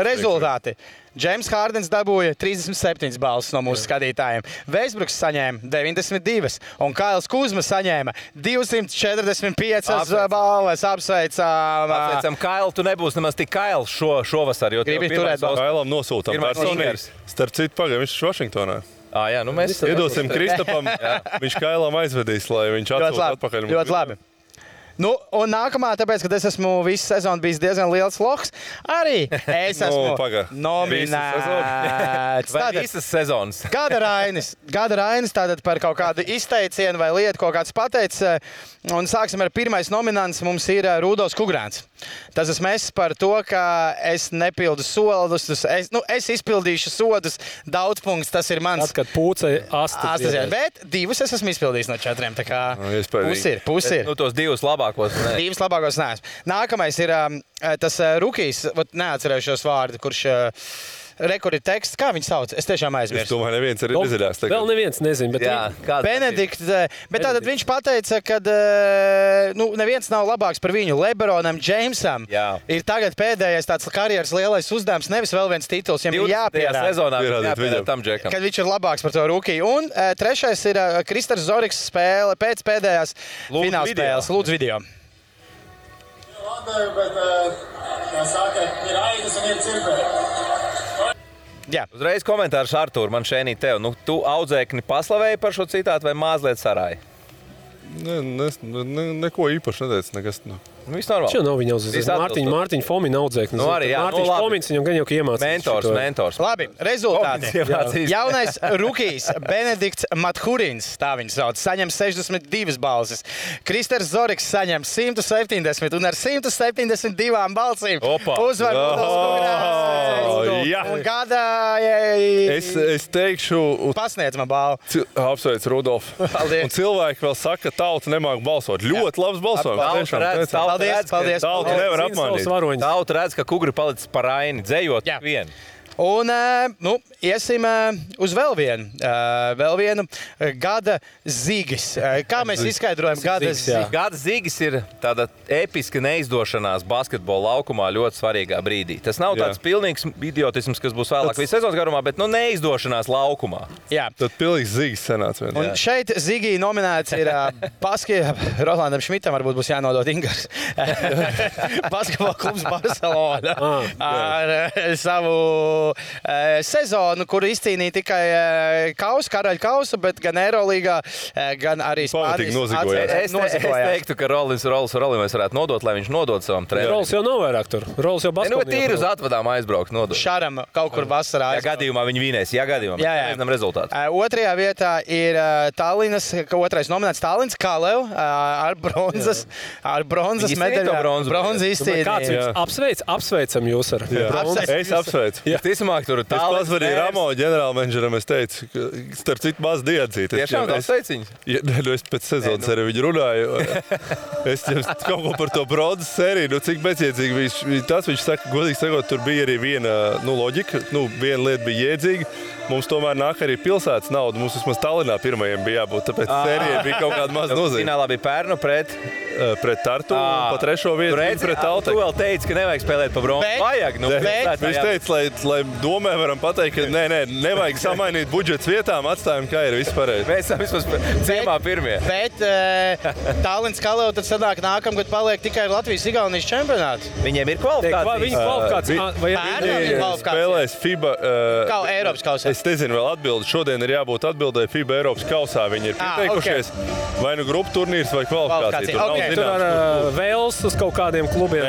Rezultāti. James Hardens dabūja 37 balvas no mūsu skatītājiem. Vēsbruks saņēma 92 un Kails Kuzma saņēma 245 balvas. Apsveicam. Kailu, tu nebūsi nemaz tik Kails šovasar. Gribi turēt balvas. Kailam nosūtam personīgi. Starp citu, pagaidām, viņš ir Vašingtonā. Jā, mēs iedosim Kristapam. Viņš Kailam aizvedīs, lai viņš atsūta atpakaļ. Ļoti labi. Un nākamā, tāpēc, ka es esmu visu sezonu bijis diezgan liels loks, arī es esmu nominēts. Visas sezonas. Gada Rainis tātad par kaut kādu izteicienu vai lietu, kaut kāds pateicis. Un sāksim ar pirmais nominants, mums ir Rudolfs Kugrāns. Tas esmu es par to, ka es nepildu soldus, es izpildīšu sodus, daudz punkts, tas ir mans. Tad, kad pūcei astas. Bet 2 es esmu izpildījis no 4, tā kā pusi ir. Tos 2 labākos. 2 labākos neesmu. Nākamais ir tas rukijs, neatcerējušos vārdu, kurš Rekur ir teksts, kā viņi sauc? Es tiešām Es aizmirsu. domāju, neviens arī nedzirdēs. Vēl neviens nezina, bet Jā, kāds Benedikts, bet tātad viņš pateica, ka neviens nav labāks par viņu. Lebronam Džeimsam Jā. ir tagad pēdējais tāds karjeras lielais uzdevums, nevis vēl viens tituls, ja 20. viņam jāpierāda. sezonā Pierādiet jāpierāda viņam. tam džekam. Kad viņš ir labāks par to rūkiju. Un trešais ir Kristers Zoriks spēle pēc pēdējās Lūdzu fināla video. spēles. Lūdzu video. Labi, bet, kā saka, ir aitas un ir cirpēji. Jā. Uzreiz komentārs Artūr, man šeit tev. Nu, tu audzēkni paslavēji par šo citātu vai mazliet sarāji? Neko īpaši neteicu. Nekas, Nu, viss normāli. Šeit nav viņa Viss uzzīmēta. Mārtiņa Fomina audzēknis. Nu, arī, jā, Mārtiņš labi. Fomins viņam gan jau iemācījis. Mentors. Labi, rezultāti. Iemācījis. Jaunais rukijs Benedikts Mathurins, tā viņš sauc, saņem 62 balsis. Kristers Zoriks saņem 170 un ar 172 balsīm Opa. uzvar Rudolfs jā. un gada Es teikšu, pasniedz man balvu. apsveic Rudolfu. Paldies. Un cilvēki vēl saka, ka tauta nemāk balsot. Ļoti labs balsojums. Tiešām. Paldies. Tauta nevar apmānīt. Tauta redz, ka kugri palicis par aini, dzējot Jā. vienu. Un iesim uz vēl vienu gada zīgis. Kā mēs izskaidrojam gada Zīgis, jā. zīgi? Gada zīgis ir tāda episka neizdošanās basketbola laukumā ļoti svarīgā brīdī. Tas nav tāds pilnīgs idiotisms, kas būs vēlāk visas sezonas garumā, bet neizdošanās laukumā. Jā. Tad pilnīgs zīgs senāts. Un šeit Zigī nominēts ir Rolandam Šmitam, varbūt būs jānodot Ingars. Basketbola klubs Barcelona ar savu sezonu, kuru izcīnīja tikai karaļa kausu, bet gan Eirolīgā, gan arī Pamatīgi Spānijas nozigojās. Es teiktu, ka Rolis mēs varētu nodot, lai viņš nodod savam trenerim. Rols jau nav vairāk tur. Rols jau Nu, bet basketbolā. tīri uz atvadām aizbraukt nodot. Šaram kaut kur vasarā. Ja gadījumā viņi vinēs, ja gadījumā Jā, jā. mēs nezinām rezultātu. Otrajā vietā ir Tallinas, otrais nominēts Tallins Kalev ar bronzas Viņi izcīnīja medaļu. to bronzu. Bronzas Kāds izcīnīja. viņus apsveicam jūs ar bronzas? Es apsveicu. Visticamāk, tur ir Es tālāk. pazvanīju Ramo ģenerālmenedžeram, es teicu, ka starp citu maz diedzīt. Tiešām tā sveiciņas. Es pēc sezonas ar viņu runāju. Es jums kaut ko par to bronzas sēriju, cik bezjēdzīgi tas viņš saka, godīgi sakot, tur bija arī viena loģika, viena lieta bija jēdzīga. Mums tomēr nāk arī pilsētas nauda. Mums vismaz Tallinā pirmajiem bija jābūt, tāpēc sērijai bija kaut kāda maza nozīme. Finālā bija Pērnu pret Tartu un pa trešo vietu pret Tu Tautai. vēl teici, ka nevajag spēlēt pa bronzu. Bet- Vajag, Viņš teica, lai domē varam pateikt, ka nevajag samainīt budžets vietām, atstājam, kā ir vispārējais. Mēs esam vismaz ciemā pirmie. Bet Tallins Kalev tad sanāk nākamgad paliek tikai Latvijas-Igaunijas čempionāts. Viņiem ir kvalifikācija. Viņa kvalifikācija. Vai Pērnam ir kvalifikācija. Spēlēs FIBA. Kā Eiropas kausā. Es nezinu, vēl atbildi. Šodien ir jābūt atbildēji FIBA Eiropas kausā. Viņi ir pieteikušies vai nu grupu turnīrs vai kvalifikācija. Kvalifikācija, Tur nav ok. tur ar zināms, Vēls uz kaut kādiem klubiem?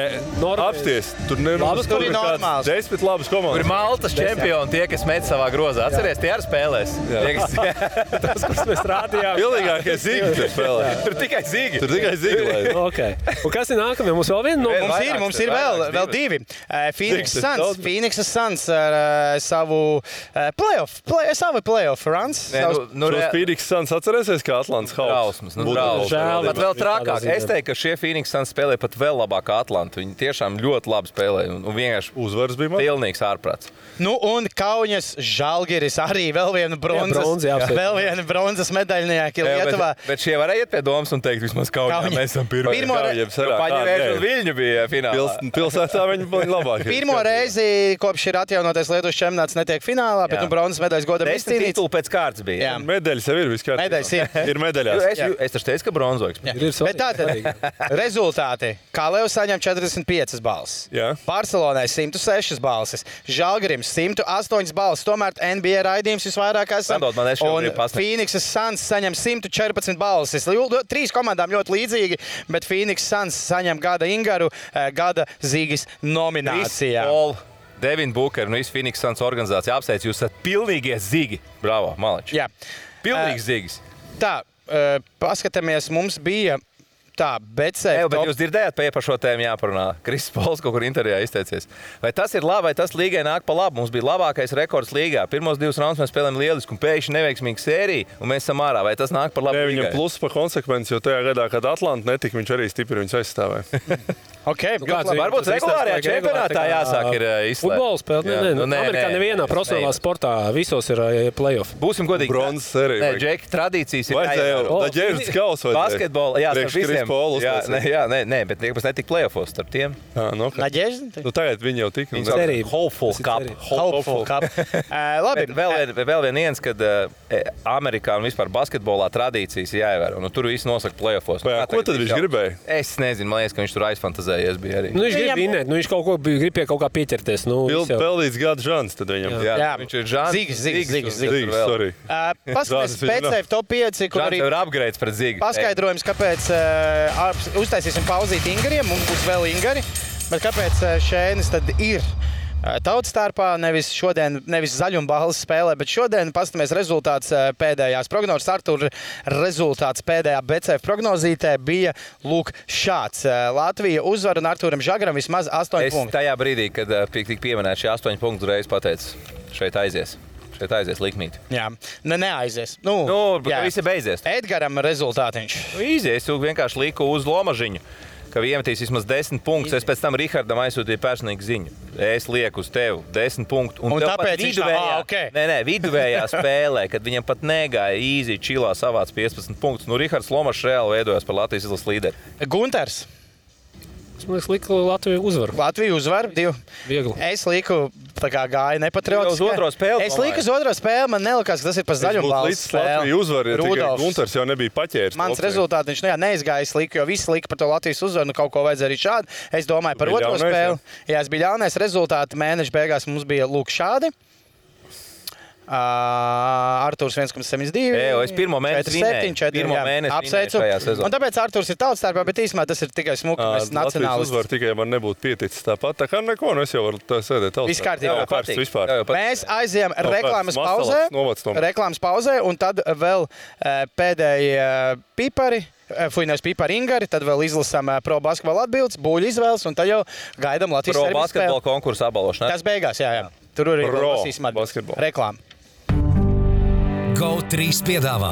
apsties. Tur Labas, tur ir normāls. 10 labas Tur ir komandas. Maltas čempioni, tie, kas met savā grozā. Atceries, tie arī spēlēs. Tie, kas- Tas, kurus mēs rādījām. Pilnīgākie zīgi tur spēlē. Tur tikai zīgi. Tur tikai zīgi. lai- Okay. Un kas ir nākamie? Mums vēl viena no Mums ir vēl divi. Phoenix Cik tas Suns. daudz? Phoenix Suns ar savu playoff runs. Šos Phoenix Suns atcerēsies, kā Atlantas Hawks? Trausmas, Būtu trausmas. žēl, Pat vēl bet trakāk. tādā ziņā. Es teiktu, ka šie Phoenix Suns spēlē pat vēl labāk kā Atlanta. Viņi tiešām ļoti labi spēlē un vienkārši Uzvaras bija man. pilnīgs ārprāts. Nu, un Kaunas Žalgiris arī vēl viena bronzi, bronzas, jā, vēl viena bronzas medaļnieka Lietuvā. Bet šie varēja iet pie domas un teikt, vismaz Kaunijā Kauņa. mēs esam pirmie. Pirmo re- Kaujiem sarā, Paņēmies, kāda un Viļņu bija finālā. Pilsētā viņi bija labākie. Pirmo reizi, kopš ir atjaunotais Lietuvas čempionāts, netiek finālā, bet Jā. bronzas medaļas godam 10 izcīnīts. titulu pēc kārtas bija. Jā. Medaļas jau ir vispār. Medaļas ir. Ir medaļās. Es taču teicu, ka bronzoiks. Bet tātad rezultāti. Kalevs saņem 45 balsis. Jā. Barcelonai 106 balsis. Žalgirim 108 balsis. Tomēr NBA raidījums visvairāk esam. Padod man, es Un šobrīd pasniegšu. Phoenix Suns saņem 114 balsis. Trīs komandām ļoti līdzīgi, bet Phoenix Suns saņem gada Ingaru, gada Zīgis nominācijā. Paul, Devin Booker un visu Phoenix Suns organizāciju apsveic. Jūs esat pilnīgie zigi. Bravo, Maleči. Jā. Pilnīgs zigis. Tā, paskatāmies, mums bija tā, bet Bet jūs dzirdējāt, par šo tēmu jāparunā. Kristis Pols kaut kur intervijā izteicies. Vai tas ir labi, vai tas līgai nāk pa labu? Mums bija labākais rekords līgā. Pirmos 2 raundus mēs spēlējām lielisku un pēkšņi neveiksmīgu sēriju, un mēs esam ārā. Vai tas nāk par labu? Ne, viņam līgai? plus pa konsekvenci, jo tajā gadā, kad Atlanta netika, viņš arī stipri viņus aizstāvēja. Okay, Varbūt regulārajā čempionātā jāsāk ir izslēgt. Futbola spēle? Nē. Amerikā nevienā profesionālā sportā visos ir play-off. Būsim godīgi. Bronzas serija. Nē, Džeki, tradīcijas ir jāievēro. Daģēžas kaus vajadzēja. Basketbola, jā, starp visiem. Jā, bet nekas netika play-offos starp tiem. Naģēža? Tagad viņi jau tika. Hopeful Cup. Labi. Vēl viens, kad Amerikā un vispār basketbolā tradīcijas jāievēro. Tur viss nosaka play-offos. Ko tad viņš gribēja? Es nezinu, man liekas, ka viņš tur aizfantazēja. Viņš grib vinēt, viņš grib pie kaut kā pieķerties. Peldīts gada žans tad viņam. Jā, viņš ir žans. Zīgs, sorry. Paskaties PCF top 5, kur arī ir upgrades pret Zīgu. Paskaidrojums, kāpēc uztaisīsim pauzīt Ingariem, un būs vēl Ingari, bet kāpēc Šēnis tad ir tautas starpā, nevis zaļumballes spēlē, bet šodien pastamies rezultāts pēdējās prognozes. Artur, rezultāts pēdējā BCF prognozītē bija lūk šāds. Latvija uzvar un Arturam Žagaram vismaz 8 punkti. Es tajā brīdī, kad tika pieminēt šie 8 punktu reiz pateicu, šeit aizies likmīt. Jā, neaizies. Visi beidzies. Edgaram rezultātiņš. Izies, vienkārši liku uz Lomažiņu, ka iemetīs vismaz 10 punktus. Es pēc tam Rihardam aizsūtīju personīgu ziņu. Es lieku uz tevi 10 punktu. Un tāpēc viduvējā spēlē, kad viņam pat negāja īzi, čilā savāc 15 punktus. Rihards Lomašs reāli veidojās par Latvijas izlases līderi. Gunters. Es liku Latviju uzvaru. Latviju uzvaru, 2. Viegli. Es liku, tā kā gāja nepatriotiski. Uz otro spēli. Es liku uz otro spēli, man nelikās, ka tas ir pa zaļumballes spēli. Latviju uzvaru, tikai Gunters jau nebija paķēris. Mans rezultāts neizgāja, es liku, jo visi lika par to Latvijas uzvaru, kaut ko vajadzēja arī šādi. Es domāju par otro spēli. Jā, es biju ļaunais. Rezultāti mēneša beigās mums bija lūk šādi. Arturs 1,72. Es pirmo mēnesi apsveicu. Un tāpēc Arturs ir tautas starpā, bet īsumā tas ir tikai smuki. Mēs nacionālisti. Latvijas uzvar tikai man nebūtu pieticis tāpat. Tā kā neko, es jau varu sēdēt tautas. Viss kārtībā. Mēs aizējām reklāmas pauzē, un tad vēl pēdējie pipari. Nevis pipari Ingari, tad vēl izlasām pro basketbola atbildes, buļu izvēles, un tad jau gaidām Latvijas pro basketbola konkursu abalošanā. Tas beigās, jā. Tur arī lasīsim atbildes. Reklāma. GO3 piedāvā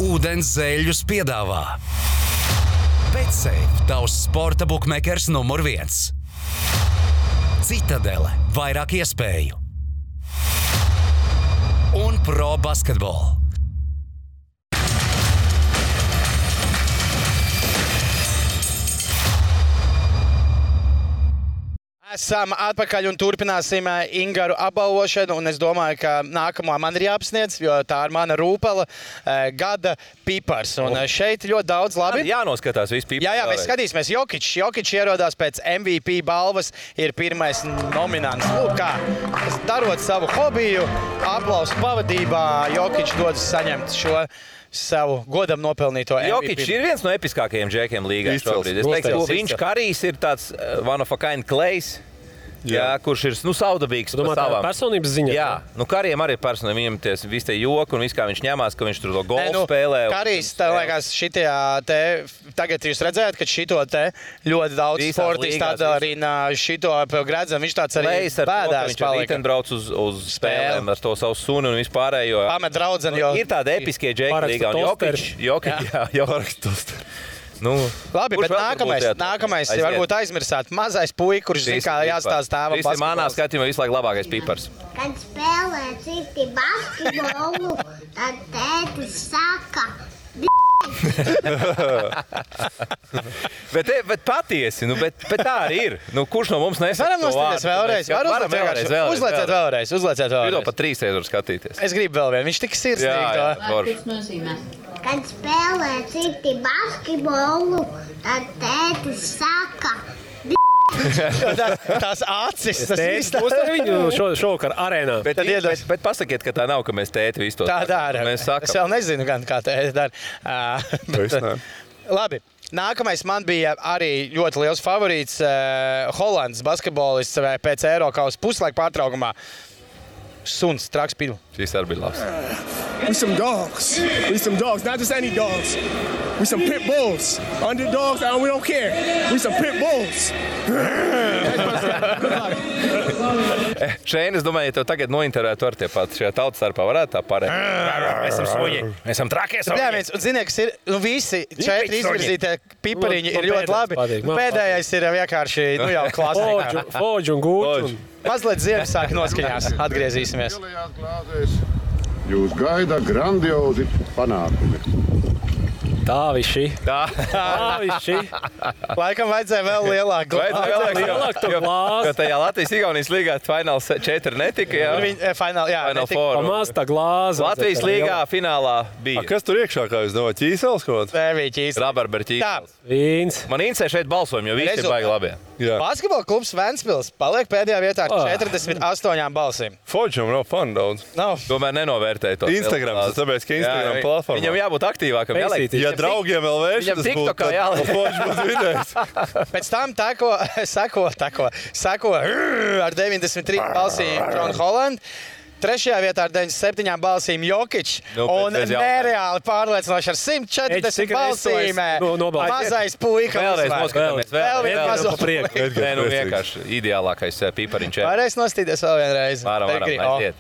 Ūdens zeļus piedāvā BetSafe, tavs sporta bukmekers numur 1. Citadele, vairāk iespēju. Un pro basketbolu. Esam atpakaļ un turpināsim Ingaru apbalvošanu, un es domāju, ka nākamā man ir jāapsniedz, jo tā ir mana rūpela gada pipars. Un šeit ļoti daudz labi. Jānoskatās visu pipars. Jā, mēs skatīsimies. Jokičs ierodās pēc MVP balvas, ir pirmais nominants. Lūk kā, darot savu hobiju, aplausu pavadībā, Jokičs dodas saņemt šo savu godam nopelnīto MVP. Jokičs ir viens no episkākajiem džekiem līgā šobrīd. Es teiktu, viņš Karijs ir tāds one of a kind Klejs. Jā, kurš ir saudabīgs par savām. Personības ziņā? Jā, Karijam arī ir personība. Viņam visi tie joki un viss, kā viņš ņemās, ka viņš tur to golfu spēlē. Karijs, tā liekas, tagad jūs redzējāt, ka šito te ļoti daudz sportisti atdarina šito gredzam. Viņš tāds arī bēdās palika. Viņš arī brauc uz spēlēm ar to savu suni un vispārējo. Pamet draudzeni, jo... Ir tāda episkie džeki līgā un Jokičs. Labi, bet nākamais varbūt aizmirsāt. Mazais puika, kurš zina, kā jāstāsta tēvam basketbols. Manā skatījumā visu laiku labākais pipars. Kad spēlē citi basketbolu, tad tētis saka... bet patiesi, bet tā arī ir. Kurš no mums nesaka to vārdu? Varam uzlieciet vēlreiz. Jūs pat 3 reizes var skatīties. Es gribu vēl vienu. Viņš tik sirsnīgi. Kad spēlē citi basketbolu, tad tētis saka... Tās acis, tas viss. Būs ar viņu šovakar arēnā. Bet pasakiet, ka tā nav, ka mēs tēti visu to tā dara. Es vēl nezinu, kā tēti dara. Labi. Nākamais man bija arī ļoti liels favorīts Holandas basketbolists pēc Eirokausa puslaika pārtraukumā. Suns, traks pilu. Šis arī bija labs. We some dogs, not just any dogs. We some pit bulls. Underdogs, we don't care. We some pit bulls. Šeit, es domāju, ja tev tagad nointervētu ar tie pat šajā tautas starpā, varētu tā pārēt. Mēs esam suņi. Mēs esam trakie suņi. Jā, un ziniet, kas ir, visi 4 izvirzītie pipariņi ir ļoti labi. Pēdējais ir vienkārši, jau klasika. Foģi un gūti. Mazliet Ziemassvētku noskaņās. Atgriezīsimies. Jūs gaida grandiozi panākumi. Tā viši. Laikam vajadzēja vēl lielāku glāzi. Jo tajā Latvijas-Igaunijas līgā fināls 4 netika, jā? Final four. Pamaz tā glāze. Latvijas līgā finālā bija. Kas tur iekšā, kā jūs domājat, ķīsels kaut kāds? Bija ķīsels. Rabarber ķīsels. Vīns. Man interesē šeit balsojumi, jo visi ir baigi labi. Basketbola klubs Ventspils paliek pēdējā vietā ar 48 balsīm. Foģam nav fanu daudz. Tomēr nenovērtēja to. Instagrams, tāpēc, ka Instagram platformā. Viņam jābūt aktīvākam. Ja draugiem vēl vērš, tas būtu, tad Foģis būtu vidējs. Pēc tam sako ar 93 balsīm John Holland. Trešajā vietā ar 97 balsīm Jokič un nereāli pārliecinoši ar 140 balsīm. Mazais puika. Vēlreiz noskatāmies. Vēl vienu mazo prieku. Nē, nu vienkārši ideālākais pipariņš. Varēs nostīties vēl vienreiz. Varam, aiziet.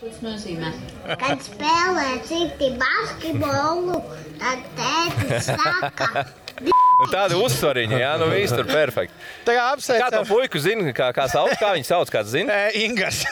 Kad spēlē citi basketbolu, tad tētis saka. Tādi uzsvariņi, jā, nu viss tur perfekti. Tā kā apsveicam. Kā to puiku zini, kā viņi sauc, kāds zini? Ingars.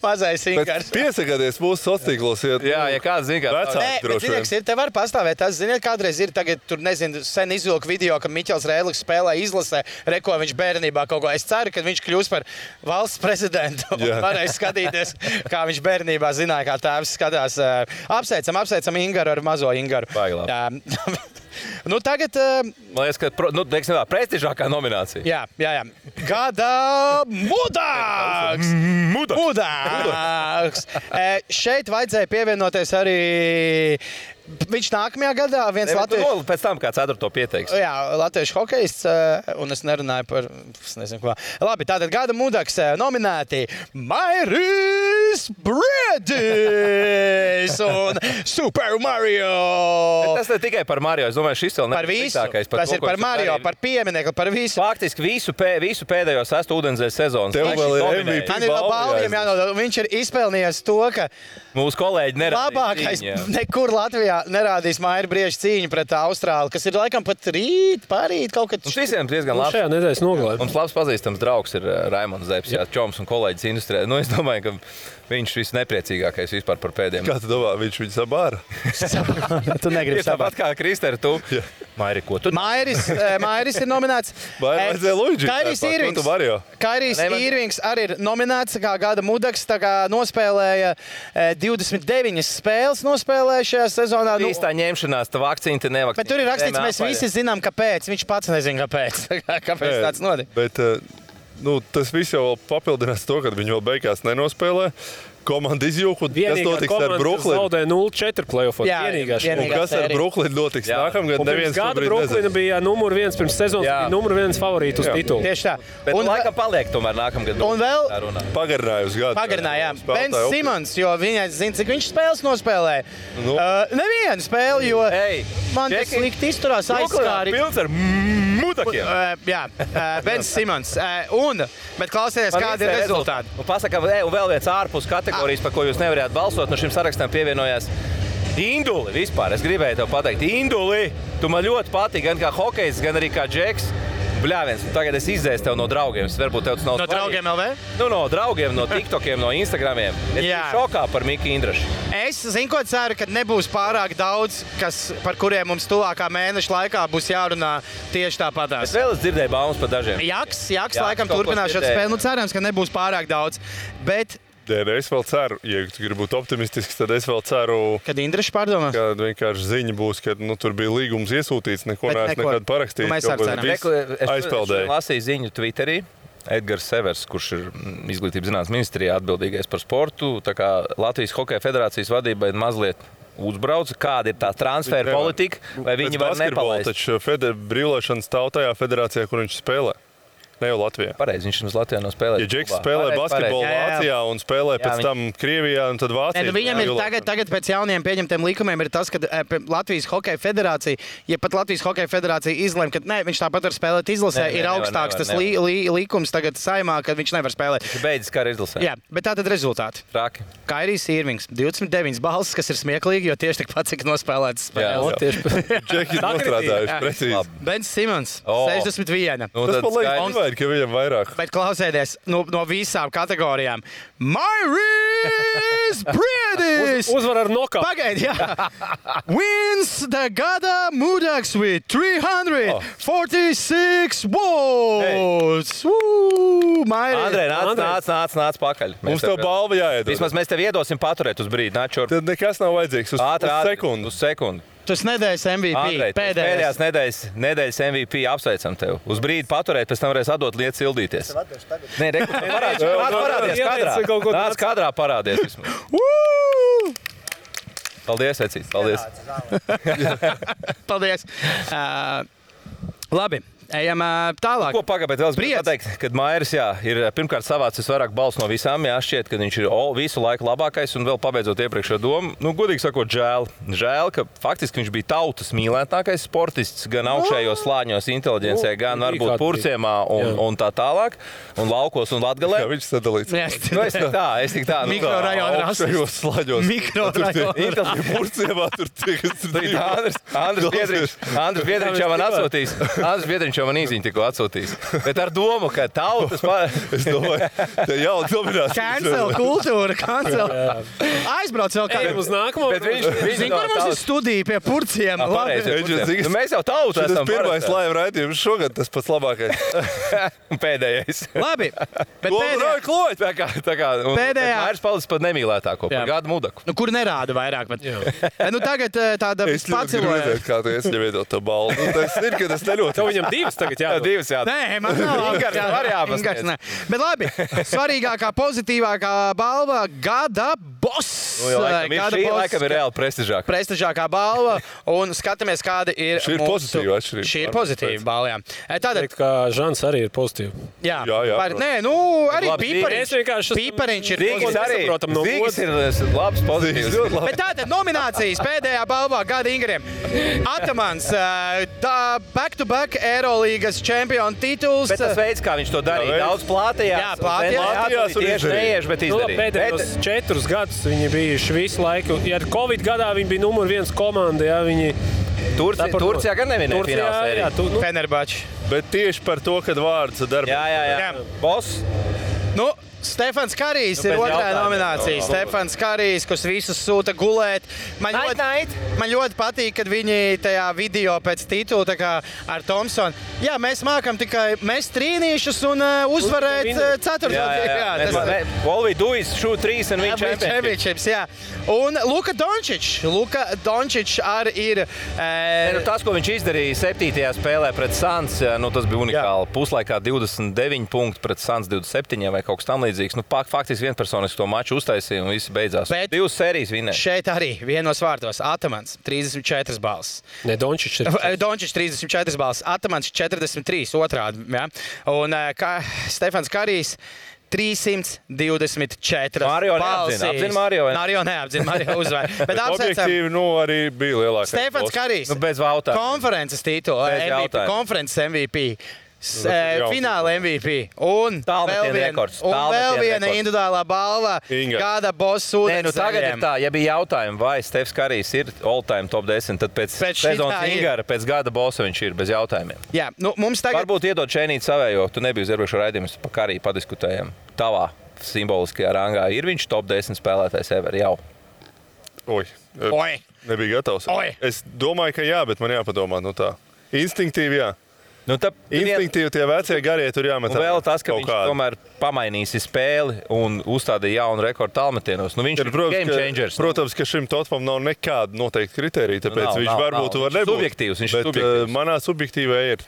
Mazais Ingars. Piesakāties mūsu sociālos. Jā, ja kāds zina, kā vecāki droši vien. Ir, te var pastāvēt. Tas, ziniet, kādreiz ir tagad, tur nezinu, sen izvilku video, ka Miķels Rēliks spēlē izlasē, reko viņš bērnībā kaut ko. Es ceru, ka viņš kļūs par valsts prezidentu. Varēs skatīties, kā viņš bērnībā zināja, kā tēvs skatās. Apsveicam Ingaru ar mazo Ingaru. Nu, tagad... Man liekas, ka prestižākā nominācija. Jā. Gada mudāks! Mudāks! Šeit vajadzēja pievienoties arī... Viņš nākamajā gadā viens latviešu... Pēc tam kā 4. pieteiks. Jā, latviešu hokejists, un es nerunāju par... Es nezinu, ko. Labi, tātad gada mudaks nominēti Mairis Briedis un Super Mario. Bet tas ne tikai par Mario, es domāju, šis vēl nepasītākais. Tas ir par Mario, par pieminiektu, par visu. Faktiski visu pēdējo 6. ūdenzēļa sezonu. Tev vēl ir MVP balvi. Balviem jānodod. Viņš ir izpelnījies to, ka... Mūsu kolēģi nerādīs labākais nekur Latvijā nerādīs Maira Brieža cīņu pret Austrāli, kas ir laikam pat parīt kaut kad. Mums visiem diezgan labs. Šajā nedēļas nogalē. Mums labs pazīstams draugs ir Raimonds Zepes, čoms un kolēģis industrijā. Nu, es domāju, ka viņš visnepriecīgākais vispār par pēdējiem. Kā tu domā, viņš viņu sabāra? Tu negribi sabāra. Tāpat kā Kristēra, tu. Mairi, ko tu? Mairis ir nominēts. Vajadzēja Luigi. Kairijs Irvings arī ir nominēts kā gada mudaks, tā kā nospēlēja 29 spēles nospēlēja šajā sezonā. Īstā ņemšanās, tā vakcīna te nevakcīna. Bet tur ir rakstīts, mēs visi zinām, kāpēc. Viņš pats nezina, kāpēc. Kāpēc tāds notika. Bet tas viss jau papildinās to, ka viņi vēl beigās nenospēlē. Komanda izjūka, kas notiks ar Brooklynu? Zaudēja 0-4 playoffos. Un kas ar Brooklynu notiks nākamgad? Pirms gada Brooklyna bija numur 1 pirms sezonas, bija numur 1 favorīti uz titulu. Tieši tā. Bet laikam paliek tomēr nākamgad. Un vēl pagarināja uz gadu. Pagarināja, jā. Bens Simons, jo viņai zina, cik viņš spēles nospēlē. Nevienu spēli, jo man tas slikti izturās aizskāri. Pilns ar mudakiem. Jā, Bens Simons. Bet klausieties, kādi ir rezultāti. Pasaka, un vēl viens ārpus kategorijas, par ko jūs nevarējāt balsot, no šim sarakstam pievienojās Induli vispār. Es gribēju tev pateikt, Induli, tu man ļoti patīk, gan kā hokejs, gan arī kā džeks. Bļāviens, tagad es izdzēsu tev no draugiem. Varbūt tev tas nav no draugiem LV? Nu, no draugiem, no TikTokiem, no Instagramiem. Es biju šokā par Miki Indrašu. Es zinu, ko ceru, ka nebūs pārāk daudz, par kuriem mums tuvākā mēneša laikā būs jārunā tieši tāpatās. Es vēl dzirdēju baumas par dažiem. Jaks laikam turpinās šo spēli. Nu, cerams, ka nebūs pārāk daudz. Bet Es vēl ceru, ja tu gribi būt optimistisks, tad es vēl ceru, kad Indrašs pārdomās. Kad vienkārši ziņa būs, ka tur bija līgums iesūtīts, neko neesmu nekad parakstījis. Mēs arī ceram. Es lasīju ziņu Twitterī. Edgars Severs, kurš ir izglītības zinātnes ministrijā atbildīgais par sportu, tā kā Latvijas Hokeja federācijas vadībai mazliet uzbrauca, kāda ir tā transfera politika, vai viņi var nepalaist. Taču brīvlaišanas stāv tajā federācijā, kur viņš spēlē. Ne jau Latvijā. Pareizi, viņš mums Latvijā nav spēlējis. Ja Džeks spēlē basketbolu Vācijā un spēlē pēc tam Krievijā un tad Vācijā. Viņam ir tagad pēc jauniem pieņemtiem likumiem ir tas, ka Latvijas Hokeja federācija, ja pat Latvijas Hokeja federācija izlem, ka viņš tāpat var spēlēt izlasē, ir augstāks tas likums tagad saimā, ka viņš nevar spēlēt. Viņš beidzis kā izlasē. Jā, bet tātad rezultāti. Traki. Kairijs Irvings, 29 balsis, kas ir smieklīgi, jo tieši tikpat cik nospēlētas spēles. Džeki nostrādājuši precīzi. Bens Simons, 61. Tas man liekas, ka viņam vairāk. Bet klausieties, no visām kategorijām. Mairis Briedis! Uzvar ar nokautu. Pagaidi, jā. Wins the Gada Mudaks with 346 votes. Andrej, nāc pakaļ. Mums tev balva jāiedod. Vismaz mēs tev iedosim paturēt uz brīdi. Tad nekas nav vajadzīgs. Uz sekundi. Tas nedēļas MVP. Andrej, pēdējās nedēļas MVP apsveicam tev. Uz brīdi paturēt, pēc tam varēs atdot lietas sildīties. Nē, parādies kadrā. Nāc kadrā parādies. Paldies, Vecīt. Paldies. Paldies. Labi. Ejam tālāk. Ko pagābēt vēl gribu pateikt, kad Mairis ir pirmkārt savācis vairāk balsu no visām, šķiet, ka viņš ir visu laiku labākais un vēl pabeidzot iepriekšējo domu. Godīgi sakot, žēl, ka faktiski viņš bija tautas mīlētākais sportists gan augšējos slāņos inteliģencē, gan varbūt Purciemā un tā tālāk, un laukos un Latgalē. Jā, viņš sadalīts. Es tik tā. Mikrorajona augšējos slāņos. Mikrorajona. Purciemā tur tiek. Andris Biedriņš jau man atsūtīs. Viņš jau man īziņu tikko atsūtīs. Bet ar domu, ka tautas... Es domāju, te jau dominās. Cancel kultūra, cancel. Aizbrauc vēl kādiem uz nākamo. Bet viņš kur mums ir studija pie Purciem. Mēs jau tautu esam. Tas pirmais live raidījums šogad tas pats labākais. Pēdējais. Labi. Bet pēdējā. Mairis palicis pat nemīlētāko par Gada Mudaku. Kur nerāda vairāk. Tagad tāda paciloja. Kā tu esi neviedot to balvu. Tas ir, ka tas neļot. Tagad divas jādod. Nē, man nav. Ingars, bet labi, svarīgākā, pozitīvākā balva Gada Boss. Laikam ir reāli prestižākā. Prestižākā balva, un skatāmies, kāda ir šī ir pozitīva atšķirība. Šī ir pozitīva balva, jā. Tātad, kā Žans arī ir pozitīva. Jā. Nē, arī Pīpariņš ir pozitīvs. Zīgs ir labs pozitīvs. Bet tātad nominācijas pēdējā balvā Gada Ingariem. Atamans, back-to-back Eirolīgas čempionu tituls. Bet tas veids, kā viņš to darīja, daudz plātījās. Jā, plātījās. Tieši neieši, bet izdarīja. Pēdējos 4 gadus viņi bijuši visu laiku. Ja Covid gadā viņi bija numur 1 komanda, viņi... Turcijā gan nevinēja finālsēriju. Fenerbahče. Bet tieši par to, kad vārds darba. Jā. Boss. Stefans Karijs ir otrā nominācija. Stefans Karijs, kas visus sūta gulēt. Man ļoti patīk, kad viņi tajā video pēc titula ar Thompsonu. Jā, mēs mākam tikai mest trīnīšus un uzvarēt ceturto. All we do is shoot 3 and win championships. Jā. Un Luka Dončić arī ir... Tas, ko viņš izdarīja 7. spēlē pret Suns, tas bija unikāli. Puslaikā 29 punkti pret Suns 27 vai kaut kas tam līdzīgs. Faktiski vienpersoniski to maču uztaisīja un visi beidzās. 2 sērijas vinēja. Šeit arī vienos vārtos Atamans 34 balss. Ne, Dončić 34 balss. Atamans 43 otrādi. Ja? Un Stefans Karijs 324 balsis. Apzina Mario. Mario neapzina, Mario uzvar. Bet objektīvi, arī bija lielākais. Stefans Karijs. Bez jautājumu. Konferences titula. Konferences MVP. Fināla MVP. Un vēl viena individuālā balva Gada Boss ūdens tagad ir tā, ja bija jautājumi, vai Stefs Karijs ir all-time top 10, tad pēc sezonas Ingara, pēc Gada Bossa viņš ir bez jautājumiem. Jā, mums tagad... Varbūt iedod šeinīt savējo, tu nebija uz iepriekšo raidījumus pa Kariju padiskutējam. Tavā simboliskajā rangā ir viņš top 10 spēlētājs ever jau? Oi. Nebija gatavs. Es domāju, ka jā, bet man jāpadomā tā. Instinktīvi jā. Instinktīvi tie vecie garie tur jāmet. Un vēl tas, ka viņš tomēr pamainīsi spēli un uzstādīja jaunu rekordu tālmetienos. Viņš ir game changers. Protams, ka šim Totmam nav nekāda noteikta kriterija, tāpēc viņš varbūt var nebūt. Subjektīvs, viņš ir subjektīvs. Manā subjektīvā ir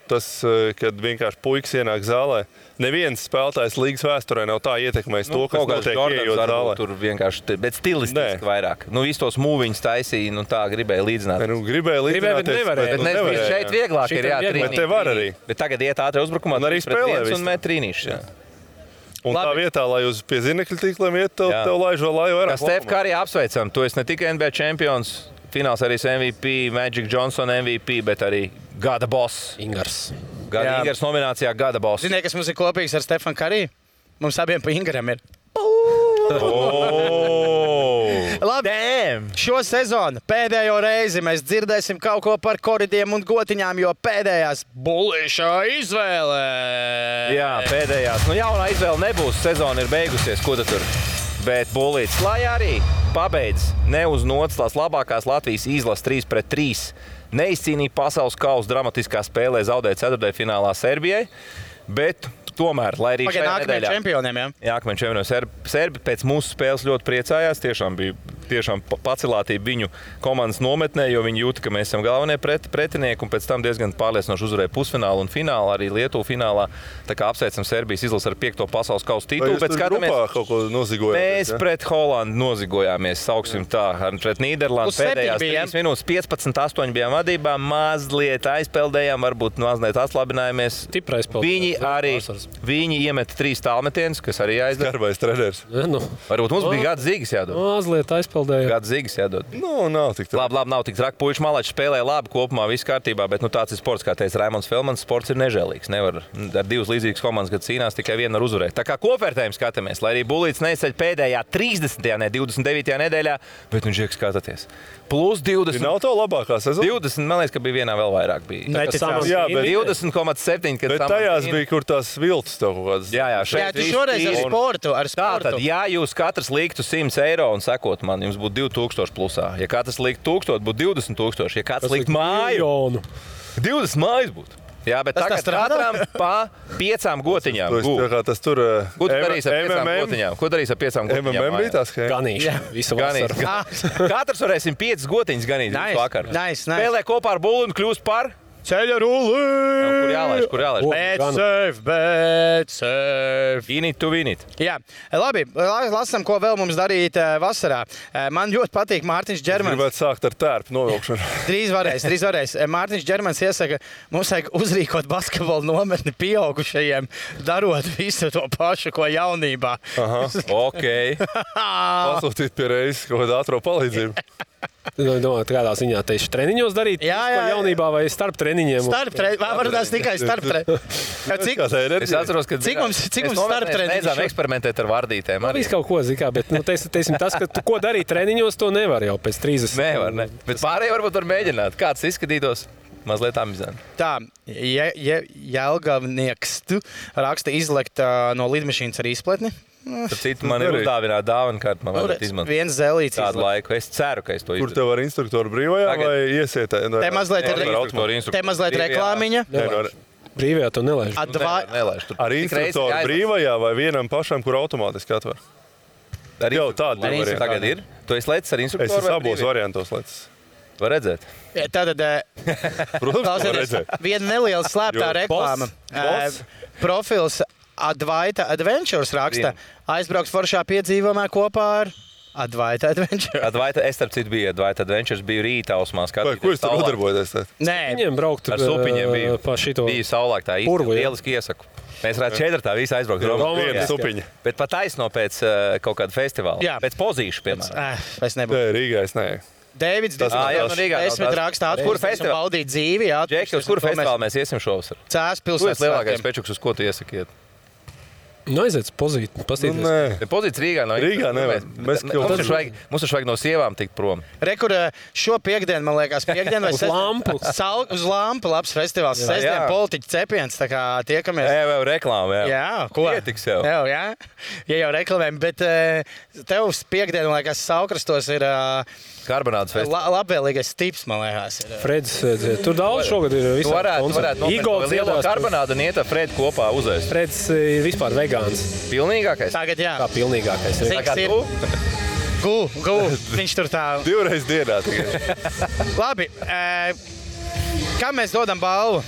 tas, kad vienkārši puikas ienāk zālē. Neviens spēlētājs līgas vēsturē nav tā ietekmējis to, kas notiek ieejot zālē. Tur vienkārši, bet stilistiski vairāk. Visus tos mūviņus taisīja, tā gribēja līdzināt. Gribēja līdzināt. Bet šeit vieglāk ir, jā, trīnīt. te var arī. Bet tagad iet ātri uzbrukumā. Un arī spēlē un met trīnīšus. Un tā vietā, lai uz pie zinekļu tīkliem iet, tev laižo laju vairāk. Stef Karī apsveicam. Tu esi ne tikai NBA čempions, fināls arī MVP, Magic Johnson MVP, bet arī gada boss. Ingars. Ingars nominācijā gada boss. Ziniet, kas mums ir kopīgs ar Stefanu Karī? Mums abiem pa Ingaram ir. Labi, šo sezonu pēdējo reizi mēs dzirdēsim kaut ko par koridiem un gotiņām, jo pēdējās bullīšā izvēle. Jā, pēdējās. Nu, jaunā izvēle nebūs, sezona ir beigusies, ko tu tur? Bet bullīts, lai arī pabeidz ne uz nots tās labākās Latvijas izlases 3-3, neizcīnīja pasaules kausa dramatiskā spēlē, zaudēja ceturtdaļfinālā Serbijai, bet tomēr, lai arī šajā nedēļā... čempioniem, jā? Jā, nākamajiem čempioniem Serbi pēc mūsu spēles ļoti priecājās. Tiešām pacelātība viņu komandas nometnē, jo viņi jūta, ka mēs esam galvenie pretinieki un pēc tam diezgan pārliecinoši uzvarēja pusfinālu un finālu, arī Lietuvu finālā. Tā kā apsveicam Serbijas izlasi ar 5. pasaules kausa titulu. Vai jūs tur grupā kaut ko nozigojāties? Mēs pret Holandu nozigojāmies, sauksim tā, pret Nīderlandu pēdējās 3 minūtes 15-8 bijām vadībā, mazliet aizpeldējām, varbūt mazliet atslabinājāmies. Viņi iemeta 3 tālmetienus, kas arī aizdod. Skarbais treneris. Varbūt mums bija gada zīgas jādod. Mazliet aizpeldēja. Gada zīgas jādod. Nav tik traki. Labi, nav tik traki. Puiši Malači spēlēja labi, kopumā viss kārtībā, bet tāds ir sports, kā teica Raimonds Felmans, sports ir nežēlīgs. Nevar ar 2 līdzīgas komandas, kad cīnās, tikai viena var uzvarēt. Tā kā kopvērtējumu skatāmies, lai arī bullīts neizceļ pēdējā 30. 29. nedēļā, bet viņš iek skatāties. Plus 20. Nav to labākā sezona? 20, man liekas, ka bija vienā vēl vairāk. 20,7. Bet tajās bija, kur tās viltus tev kaut kādas. Jā, tu šoreiz ar sportu. Tātad, ja jūs katrs liktu 100 eiro un sekot man, jums būtu 2000 plusā. Ja katrs liktu 1000, būtu 20 000. Ja katrs liktu māju, 20 mājas būtu. Jā, bet tagad katram pa 5 gotiņām. Tas tur... Ko tu darīs ar 5 gotiņām? Ko darīs ar 5 gotiņām? MMM bija tās, ka... Ganīši. Visu vasaru. Katrs varēsim 5 gotiņas ganīt vakar. Nice. Spēlē kopā ar bulli un kļūst par... Ceļa rulli! Kur jālaiž? Bet safe. In it to win it. Jā, labi, lasam, ko vēl mums darīt vasarā. Man ļoti patīk Mārtiņš Džermans. Gribētu sākt ar tērpu novilkšanu. Drīz varēs. Mārtiņš Džermans iesaka, mums vajag uzrīkot basketbolu nometni pieaugušajiem, darot visu to pašu, ko jaunībā. Ok. Pasūtīt pie reizes kaut kādu ātro palīdzību. Domāju, kādā ziņā tieši treniņos darīt? Jā. Jaunībā vai starp treniņiem? Varbūt tikai starp treniņiem. Es atceros, ka cik mums starp treniņiem? Beidzām eksperimentēt ar vardītēm. Viss kaut ko zikā, bet teiksim tas, ka ko darīt treniņos, to nevar jau pēc 30. Nevar, ne. Bet pārējie varbūt var mēģināt. Kāds izskatītos? Mazliet amizanti. Tā, Jelgavnieks raksta izlekt no lidmašīnas ar izpletni. Tad citu man ir uzdāvināt dāvanu kārtu, man varētu izmantot. Viens zelīts tādu laiku. Es ceru, ka es to izdarīju. Kur tev var instruktoru brīvajā vai iesiet? Te mazliet reklāmiņa. Brīvajā to nelaiž. Ar instruktoru brīvajā vai vienam pašam, kur automātiski atver? Jau tāda varianta. Tagad ir? Tu esi lecis ar instruktoru? Es esmu abos variantos lecis. Var redzēt? Tātad, viena neliela slēptā reklāma. Profils Advaita Adventures raksta, aizbrauks foršā piedzīvojumā kopā ar Advaita Adventures. Advaita, es starp citu biju Advaita Adventures, biju rītā ausmā skatīties. Ko jūs tur nodarbojaties? Nē. Viņiem braukt ar supiņiem pa šito. Biju saulāk tā īsti, lieliski iesaku. Mēs varētu 4. visi aizbraukt. Viena supiņa. Bet pat taisno pēc kaut kāda festivāla. Jā. Pēc pozīšu, piemēram. Es nebūtu. Rīgā es nē. Dēvids, desmit rakstā atpūsties un baudīt dzīvi. Džeki, uz kuru festivālu mēs iesim šovasar? Cēs pilsētas. Tu esi lielākais pečuks, uz ko tu iesakiet? Aiziet pozīt, pastīties. Pozīts Rīgā nav. Rīgā nevar. Mums vajag no sievām tikt prom. Rekur šo piekdienu, man liekas, piekdienu vai lampu. Uz lampu labs festivāls. Sestdien politiķu cepiens, tā kā tiekamies. Jā, reklāma, jā. Jā, ko? Ietiks jau. Jā, ja jau reklamējam, bet tev piekdienu, man liekas, Saukrastos ir karbonādes festivāls. Labvēlīgais tips, man liekas. Freds, tur daudz šogad ir visā. Tu varētu nopirkt lielo karbonādu un iet ar Fredu kopā uzēst. Freds ir vispār vegāns. Pilnīgākais? Tagad jā. Kā pilnīgākais. Cik ir? Gu. Viņš tur tā. 2 reizes dienā. Labi. Kam mēs dodam balvu?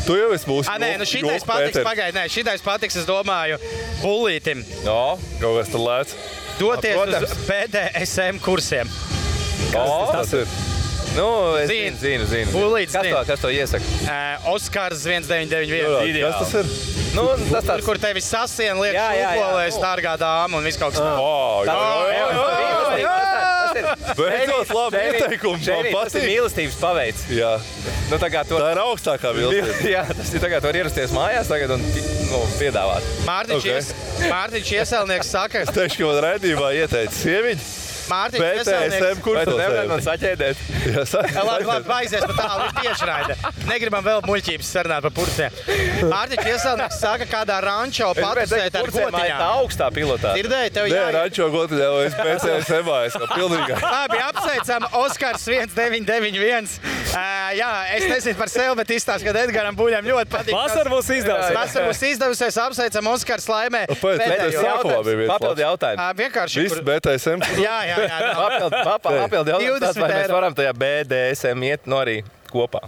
Tu jau esi mūsu. Nē, šitais patiks, pagaid. Nē, šitais patiks, es domāju, bullītim. No, kaut kas tur lēc. Doties uz BDSM kursiem. Tas ir. Es zinu. Pūlītis Kas to iesaka? Oskars 1991. Kas tas ir? Tas tāds... Kur tevi sasien liek šūpolēs, dārgā dāma un viss kaut kas Beidzot, labi ieteikumi. Tas ir mīlestības paveids. Jā. Tā ir augstākā mīlestība. Jā, tas ir tagad var ierasties mājās tagad un piedāvāt. Mārtiņš Ieselnieks saka... Es teikšu, ka man raidījumā ieteica sieviņi. Mārtiņš Ieselnieks... Vai tu nevarētu man saķēdēt? Labi, aizies pa tālu, ir tiešraide. Negribam vēl muļķības sarunāt par purcēm. Mārtiņš Ieselnieks saka, kādā rančo patusēt ar gotiņām. Tā augstā pilotā. Dzirdēji, tev Nē, rančo gotiņā, es PCSMā esmu pilnīgā. Labi, apsveicam Oskars 1991. Jā, es nezinu par sevi, bet izstāst, ka Edgaram Buļam ļoti patīk. Vasar būs izdevusies. Apsveicam Oskars laimē. Papildi jautājumu. Vienkārši. Viss BTSM. Jā. Papildi jautājums, vai mēs varam tajā BDSM iet arī kopā?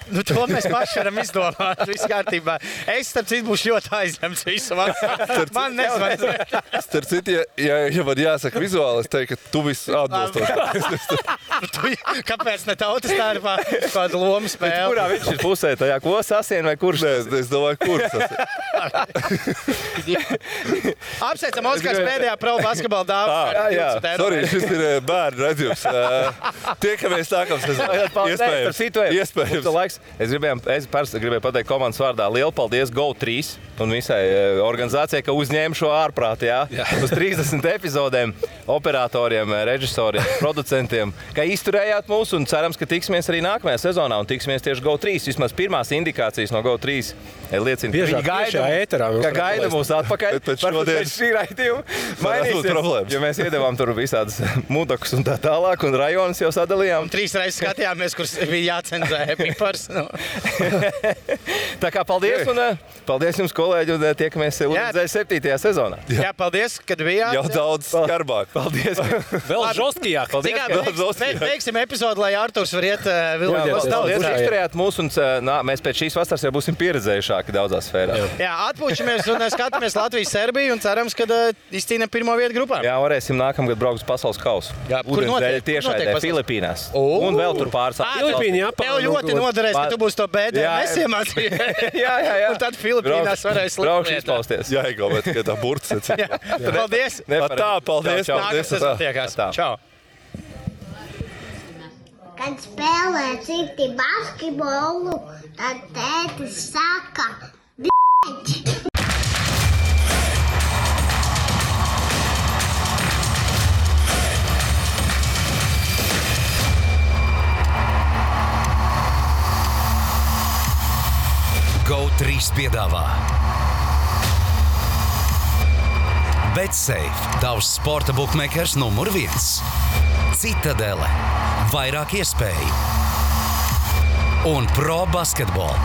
To mēs paši varam izdomāt. Viss kārtībā. Es, starp citu, būšu ļoti aizņemts visu vasaru. Man nezvanīt. Starp citu, ja man jāsaka vizuāli, es teiktu, ka tu viss atbilstoši. Kāpēc ne tautas tārpā kādu lomu spēli? Kurā viņš ir pusē? Tajā ko sasien vai kurš? Nē, es domāju, kurš sasien. Apsveicam Oskars pēdējā pro basketbola dāvā. Sorry, šis ir bērnu redzījums. Tiekamies nākamā sezonā. Iespējams. Es gribēju pateikt komandas vārdā lielu paldies GO3 un visai organizācijai, ka uzņēma šo ārprātu, uz 30 epizodēm, operatoriem, režisoriem, producentiem, ka izturējāt mūs un cerams, ka tiksimies arī nākamajā sezonā un tiksimies tieši GO3. Vismaz pirmās indikācijas no GO3 liecina, ka gaida mūs atpakaļ. Varbūt šī raidījuma mainīsies, jo mēs iedevām tur visādas mudakus un tā tālāk un rajonus jau sadalījām. 3 reizes skatījāmies, kur bija jācenzē pipars. Tā kā paldies un paldies jums, kolēģi, un tiekamies Ūdenszeļu 7. sezonā. Jā, paldies, kad bijāt. Jau daudz skarbāk. Paldies. Vēl žostkijāk. Beigsim epizodu, lai Arturs var iet Paldies, izturējāt mūs, un mēs pēc šīs vasaras jau būsim pieredzējušāki daudzās sfērās. Jā, atpūšamies un skatāmies Latviju-Serbiju un cerams, ka izcīnām pirmo vietu grupā. Jā, varēsim nākamgad braukt uz pasaules kausu. Ūdenszeļu tiešraidē Filipīnās. Un vēl tur pāris. Tev ļoti noderēs, ka tu būsi to BDS iemācījies. Jā. Un tad Filipīnās varēs braukšu izpausties. Jā, bet tikai tā burts. Paldies. Paldies. Nākamā sezona tiekās. Čau. Kad spēlē citi basketbolu, tad tētis saka, b***ķi. GO3 piedāvā BetSafe, tavs sporta bookmakers numur 1. Citadele, vairāk iespēju un Pro Basketball.